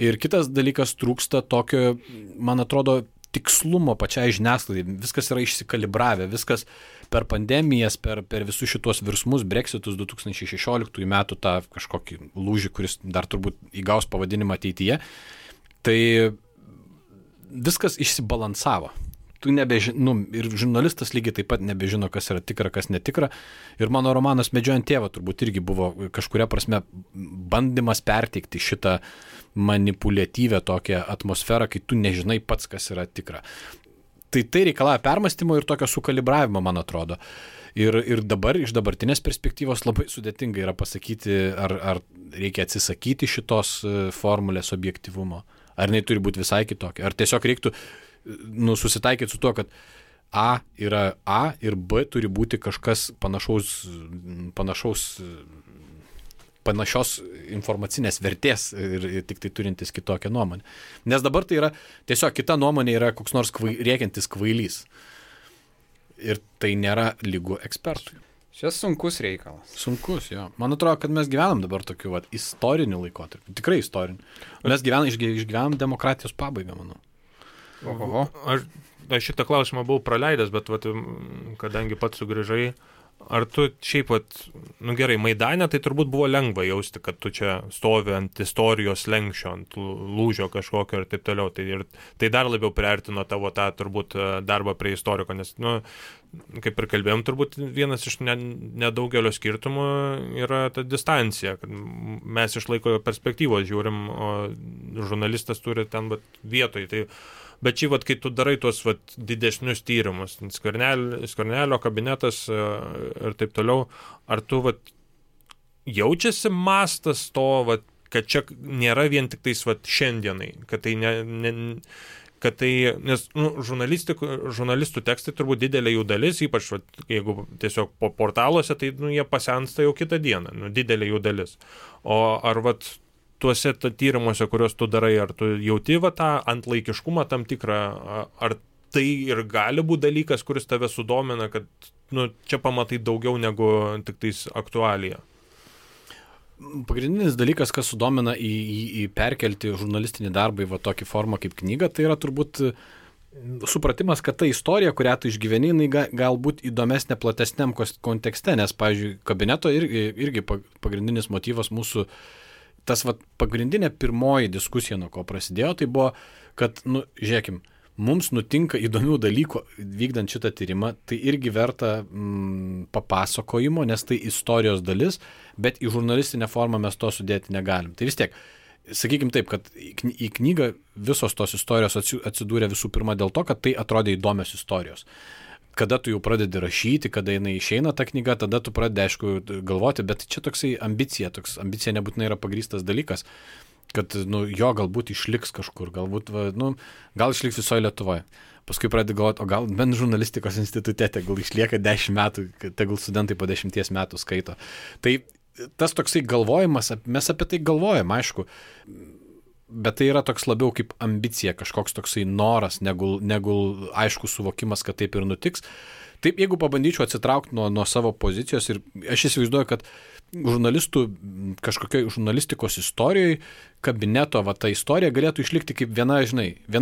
Speaker 2: Ir kitas dalykas, trūksta tokio, man atrodo, tikslumo pačiai žiniasklaidai, viskas yra išsikalibravę, viskas per pandemijas, per visus šitos virsmus, Brexitus 2016 metų, tą kažkokį lūžį, kuris dar turbūt įgaus pavadinimą ateityje, tai viskas išsibalansavo. Ir žurnalistas lygiai taip pat nebežino, kas yra tikra, kas netikra. Ir mano romanas Medžiojant tėvą turbūt irgi buvo kažkuria prasme bandymas perteikti šitą manipuliatyvę tokią atmosferą, kai tu nežinai pats, kas yra tikra. Tai reikalauja permąstymo ir tokio sukalibravimo, man atrodo. Ir dabar iš dabartinės perspektyvos labai sudėtinga yra pasakyti, ar reikia atsisakyti šitos formulės objektyvumo, ar jinai turi būti visai kitokia, ar tiesiog reiktų susitaikyti su tuo, kad A yra A ir B turi būti kažkas panašios informacinės vertės ir tik tai turintis kitokią nuomonę. Nes dabar tai yra tiesiog kita nuomonė, yra koks nors rėkiantis kvailys. Ir tai nėra lygu ekspertui.
Speaker 1: Čia sunkus reikalas.
Speaker 2: Sunkus, jo. Man atrodo, kad mes gyvenam dabar tokiu istoriniu laikotarpiu. Tikrai istoriniu. Mes išgyvenam demokratijos pabaigą, manau.
Speaker 1: Oho.
Speaker 3: Aš šitą klausimą buvau praleidęs, bet kadangi pats sugrįžai, ar tu šiaip, gerai, Maidane tai turbūt buvo lengva jausti, kad tu čia stovi ant istorijos lenkščio, ant lūžio kažkokio ir taip toliau. Tai dar labiau priartino tavo tą turbūt darbą prie istoriko, nes, kaip ir kalbėjom, turbūt vienas iš nedaugelio skirtumų yra ta distancija, kad mes iš laiko perspektyvos žiūrim, o žurnalistas turi ten vietoj. Bet šį, kai tu darai tuos didesnius tyrimus, Skvernelio kabinetas ir taip toliau, ar tu jaučiasi mastas to, kad čia nėra vien tik tais šiandienai, kad tai nes žurnalistų tekstai turbūt didelė jų dalis, ypač jeigu tiesiog po portaluose, tai jie pasensta jau kitą dieną, didelė jų dalis. O ar tuose tyrimuose, kuriuos tu darai, ar tu jauti tą antlaikiškumą tam tikrą, ar tai ir gali būti dalykas, kuris tave sudomina, kad čia pamatai daugiau negu tik tais aktualija?
Speaker 2: Pagrindinis dalykas, kas sudomina į perkelti žurnalistinį darbą į tokį formą kaip knyga, tai yra turbūt supratimas, kad ta istorija, kurią tu išgyveni, jinai galbūt įdomesnė platesniam kontekste, nes, pavyzdžiui, kabineto irgi pagrindinis motyvas mūsų, tas pagrindinė pirmoji diskusija, nuo ko prasidėjo, tai buvo, kad, žiūrėkim, mums nutinka įdomių dalykų vykdant šitą tyrimą, tai irgi verta papasakojimo, nes tai istorijos dalis, bet į žurnalistinę formą mes to sudėti negalim. Tai vis tiek, sakykim taip, kad į knygą visos tos istorijos atsidūrė visų pirma dėl to, kad tai atrodė įdomios istorijos. Kada tu jau pradedi rašyti, kada jinai išeina ta knyga, tada tu pradedi, aišku, galvoti, bet čia toksai ambicija nebūtinai yra pagrįstas dalykas, kad, jo galbūt išliks kažkur, galbūt, gal išliks visoje Lietuvoje. Paskui pradedi galvoti, o gal bent žurnalistikos institute, tegul išlieka 10 metų, tegul studentai po 10 metų skaito. Tai tas toksai galvojimas, mes apie tai galvojam, aišku, bet tai yra toks labiau kaip ambicija, kažkoks toksai noras, negu aišku suvokimas, kad taip ir nutiks. Taip, jeigu pabandyčiau atsitraukti nuo savo pozicijos ir aš įsivaizduoju, kad žurnalistų kažkokioj žurnalistikos istorijoje kabineto ta istorija galėtų išlikti kaip viena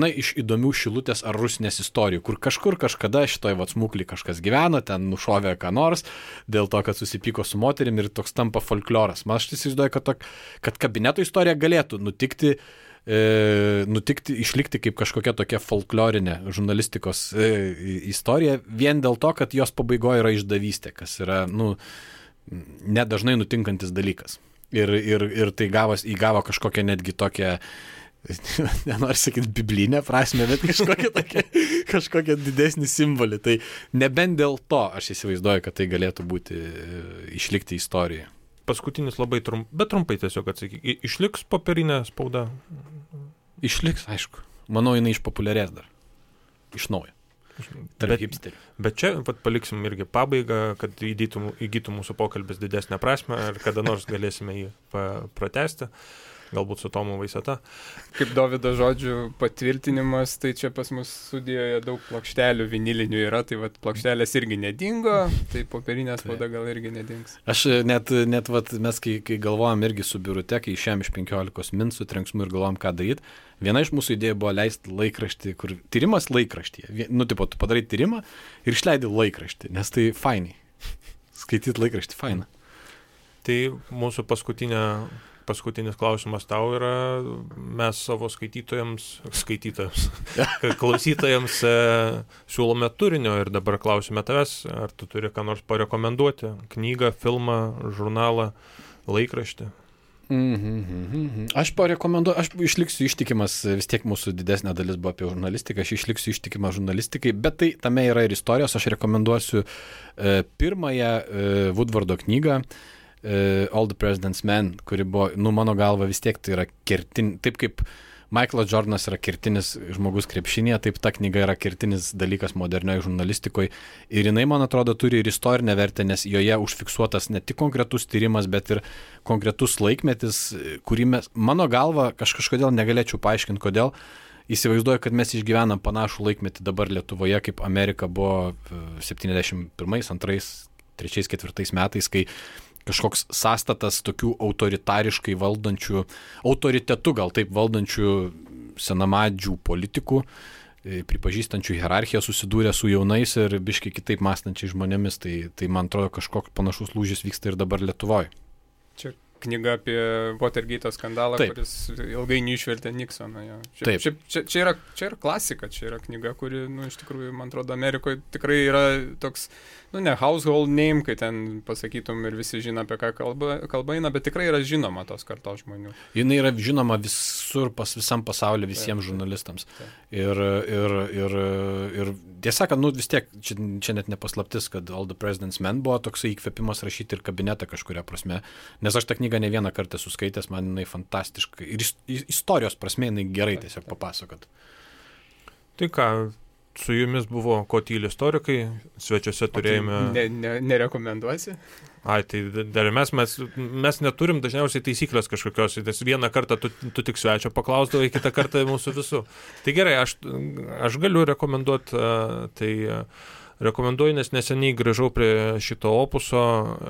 Speaker 2: iš įdomių Šilutės ar Rusnės istorijų, kur kažkur kažkada šitoj smuklį kažkas gyveno, ten nušovė ką nors, dėl to, kad susipyko su moterim ir toks tampa folkloras. Man aš įsivaizduoju, kad kabineto istorija galėtų nutikti, išlikti kaip kažkokia tokia folklorinė žurnalistikos istorija, vien dėl to, kad jos pabaigoje yra išdavystė, kas yra, nedažnai nutinkantis dalykas. Ir tai įgavo kažkokią netgi tokią, nenoriu sakyti biblinę prasme, bet kažkokią didesnį simbolį. Tai nebent dėl to aš įsivaizduoju, kad tai galėtų būti išlikti istorijoje.
Speaker 3: Paskutinis labai trumpai tiesiog atsakyk. Išliks popierinė spauda?
Speaker 2: Išliks, aišku. Manau, jinai išpopuliarės dar. Iš naujo.
Speaker 3: Bet čia paliksim irgi pabaigą, kad įgytų mūsų pokalbis didesnę prasme ir kada nors galėsime jį pratęsti, galbūt su Tomu Vaiseta.
Speaker 1: Kaip Dovydo žodžių patvirtinimas, tai čia pas mus studijoje daug plokštelių vinilinių yra, tai plokštelės irgi nedingo, tai popierinė spauda gal irgi nedings.
Speaker 2: Aš net mes kai galvojam irgi su Birute, kai išėjom iš 15 min su trenksmu ir galvojam, ką daryti, viena iš mūsų idėjų buvo leisti laikraštį, kur tyrimas laikraštyje. Tu padarai tyrimą ir išleidi laikraštį, nes tai fainai. Skaityti laikraštį faina.
Speaker 3: Tai mūsų paskutinis klausimas tau yra, mes savo klausytojams siūlome turinio ir dabar klausime tavęs, ar tu turi ką nors parekomenduoti, knygą, filmą, žurnalą, laikraštį?
Speaker 2: Aš parekomenduoju, aš išliksiu ištikimas, vis tiek mūsų didesnė dalis buvo apie žurnalistiką, aš išliksiu ištikimas žurnalistikai, bet tai tame yra ir istorijos, aš rekomenduosiu pirmąją Woodwardo knygą, All the President's Men, kuri buvo, mano galva vis tiek tai yra taip kaip Michaelas Jordanas yra kertinis žmogus krepšinėje, taip ta knyga yra kertinis dalykas modernioje žurnalistikoje ir jinai, man atrodo, turi ir istorinę vertę, nes joje užfiksuotas ne tik konkretus tyrimas, bet ir konkretus laikmetis, kurį mano galva, kažkodėl negalėčiau paaiškinti, kodėl. Įsivaizduoju, kad mes išgyvenam panašų laikmetį dabar Lietuvoje, kaip Amerika buvo 71, 2, 3, 4 metais, kai kažkoks sąstatas tokių autoritariškai valdančių, autoritetu gal taip valdančių senamadžių politikų, pripažįstančių hierarchiją susidūrė su jaunais ir biškai kitaip mąstančiai žmonėmis. Tai man atrodo, kažkoks panašus lūžis vyksta ir dabar Lietuvoje.
Speaker 1: Čia knyga apie Watergate skandalą, taip, kuris ilgainiui išvertė Nixoną. Čia yra klasika, čia yra knyga, kuri, iš tikrųjų, man atrodo, Amerikoje tikrai yra toks, ne household name, kai ten pasakytum ir visi žino, apie ką kalba eina, bet tikrai yra žinoma tos kartos žmonių.
Speaker 2: Jinai yra žinoma visur, visam pasaulyje, visiems žurnalistams. Ir tiesą sakant, vis tiek, čia net nepaslaptis, kad All the President's Men buvo toksai įkvėpimas rašyti ir kabinetą kažkuria prasme, nes aš tą knygą ne vieną kartą suskaitęs, man jinai fantastiškai ir istorijos prasme jinai gerai tiesiog papasakot.
Speaker 3: Tai ką, su jumis buvo Ko tyli istorikai, svečiuose turėjome...
Speaker 1: Nerekomenduosi?
Speaker 3: Tai dar mes neturim dažniausiai taisyklės kažkokios, nes vieną kartą tu tik svečio paklausdavai, kitą kartą mūsų visų. Tai gerai, aš galiu rekomenduoti, rekomenduoju, nes neseniai grįžau prie šito opuso,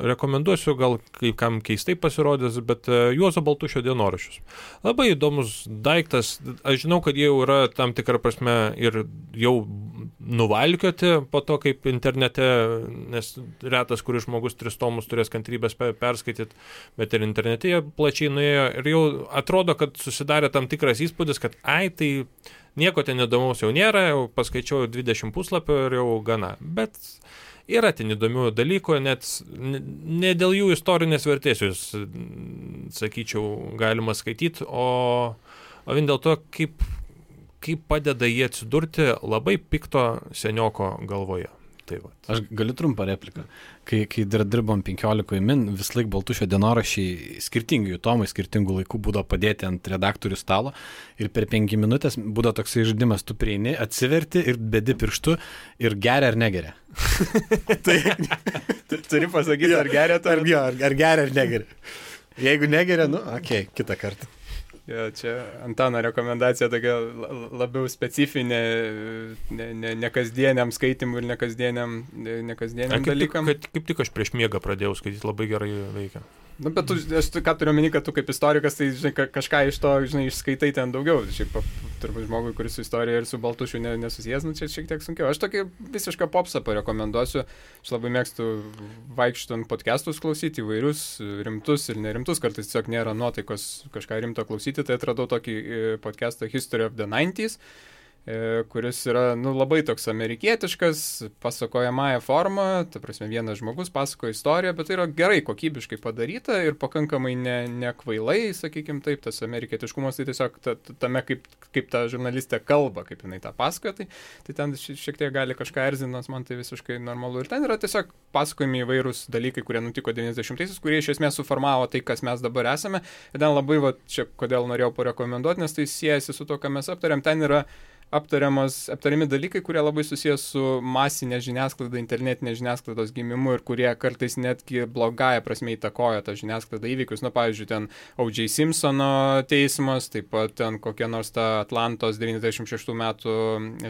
Speaker 3: rekomenduosiu, gal kai kam keistai pasirodys, bet Juozo Baltušio dienoraščius. Labai įdomus daiktas, aš žinau, kad jie jau yra tam tikrą prasme ir jau nuvalkioti po to, kaip internete, nes retas, kuris žmogus 3 tomus turės kantrybės perskaityti, bet ir internete jie plačiai nuėjo ir jau atrodo, kad susidarė tam tikras įspūdis, kad tai nieko ten įdomaus jau nėra, jau paskaičiau 20 puslapio ir jau gana. Bet yra ten įdomių dalykų, net ne dėl jų istorinės vertės jūs, sakyčiau, galima skaityti, o vien dėl to, kaip padeda jie atsidurti labai pikto senioko galvoje. Tai va.
Speaker 2: Aš galiu trumpą repliką. Kai dar dirbom 15 min, vis laik Baltušio dienoraščiai skirtingi jų tomai, skirtingų laikų būdavo padėti ant redaktorių stalo ir per 5 minutės būdavo toksai žaidimas, tu prieini, atsiverti ir bedi pirštu ir geria ar negeria.
Speaker 1: Tai turi pasakyti, ar geria to,
Speaker 2: ar geria ar negeria. Jeigu negeria, kitą kartą.
Speaker 1: Ja, čia Antano rekomendacija tokia labiau specifinė, ne kasdieniam skaitimui ir ne kasdieniam dalykam.
Speaker 3: Kaip tik aš prieš miegą pradėjau skaityti, labai gerai veikia.
Speaker 1: Nu, bet aš ką turiu omeny, kad tu kaip istorikas, tai žinai, kažką iš to, žinai, išskaitai ten daugiau. Šiaip turbūt žmogui, kuris su istorija ir su Baltušiu nesusijęs, nu, čia šiek tiek sunkiau. Aš tokį visišką popsą parekomenduosiu. Aš labai mėgstu vaikštant podcastus klausyti, įvairius, rimtus ir nerimtus, kartais tiesiog nėra nuotaikos kažką rimto klausyti, tai atradau tokį podcastą History of the 90s, kuris yra labai toks amerikietiškas, pasakojamąją formą, ta prasme vienas žmogus pasakoja istoriją, bet tai yra gerai kokybiškai padaryta ir pakankamai nekvailai, sakykime taip, tas amerikietiškumas tai tiesiog tame, kaip ta žurnalistė kalba, kaip jinai tą pasakoja, tai ten šiek tiek gali kažką erzinas, man tai visiškai normalu. Ir ten yra tiesiog pasakojami įvairūs dalykai, kurie nutiko 90-aisiais, kurie iš esmės suformavo tai, kas mes dabar esame. Ir ten labai, čia kodėl norėjau parekomenduoti, nes tai siejasi su to, ką mes aptarėm, ten yra aptariami dalykai, kurie labai susijęs su masinė žiniasklaida, internetinė žiniasklaidos gimimu ir kurie kartais netgi blogąją prasme įtakoja tą žiniasklaidą įvykius. Pavyzdžiui, ten O.J. Simpsono teismas, taip pat ten kokia nors ta Atlantos 96 metų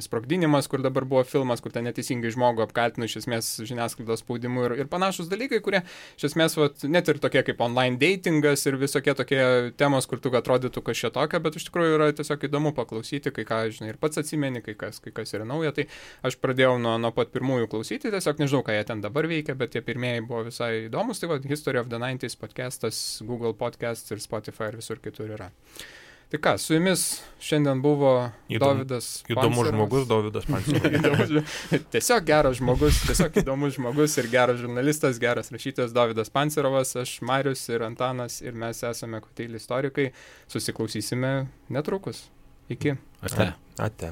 Speaker 1: sprogdinimas, kur dabar buvo filmas, kur ten neteisingai žmogų apkaltino iš esmės žiniasklaidos spaudimu ir panašus dalykai, kurie iš esmės net ir tokie kaip online datingas ir visokie tokie temos, kur tu atrodytų kažką tokio, bet iš tikrųjų yra tiesiog įdomu paklausyti, kai ką, žinai, ir pats atsimeni, kai kas yra nauja, tai aš pradėjau nuo pat pirmųjų klausyti, tiesiog nežinau, ką jie ten dabar veikia, bet tie pirmieji buvo visai įdomus, tai History of the 90s podcastas, Google Podcasts ir Spotify ir visur kitur yra. Tai ką, su jumis šiandien buvo Dovydas Pancerovas.
Speaker 3: Įdomus žmogus, Dovydas Pancerovas.
Speaker 1: Tiesiog geras žmogus, tiesiog įdomus žmogus ir geras žurnalistas, geras rašytojas Dovydas Pancerovas, aš Marius ir Antanas ir mes esame Koteili istorikai, susiklausysime netrukus. Iki.
Speaker 3: Ate.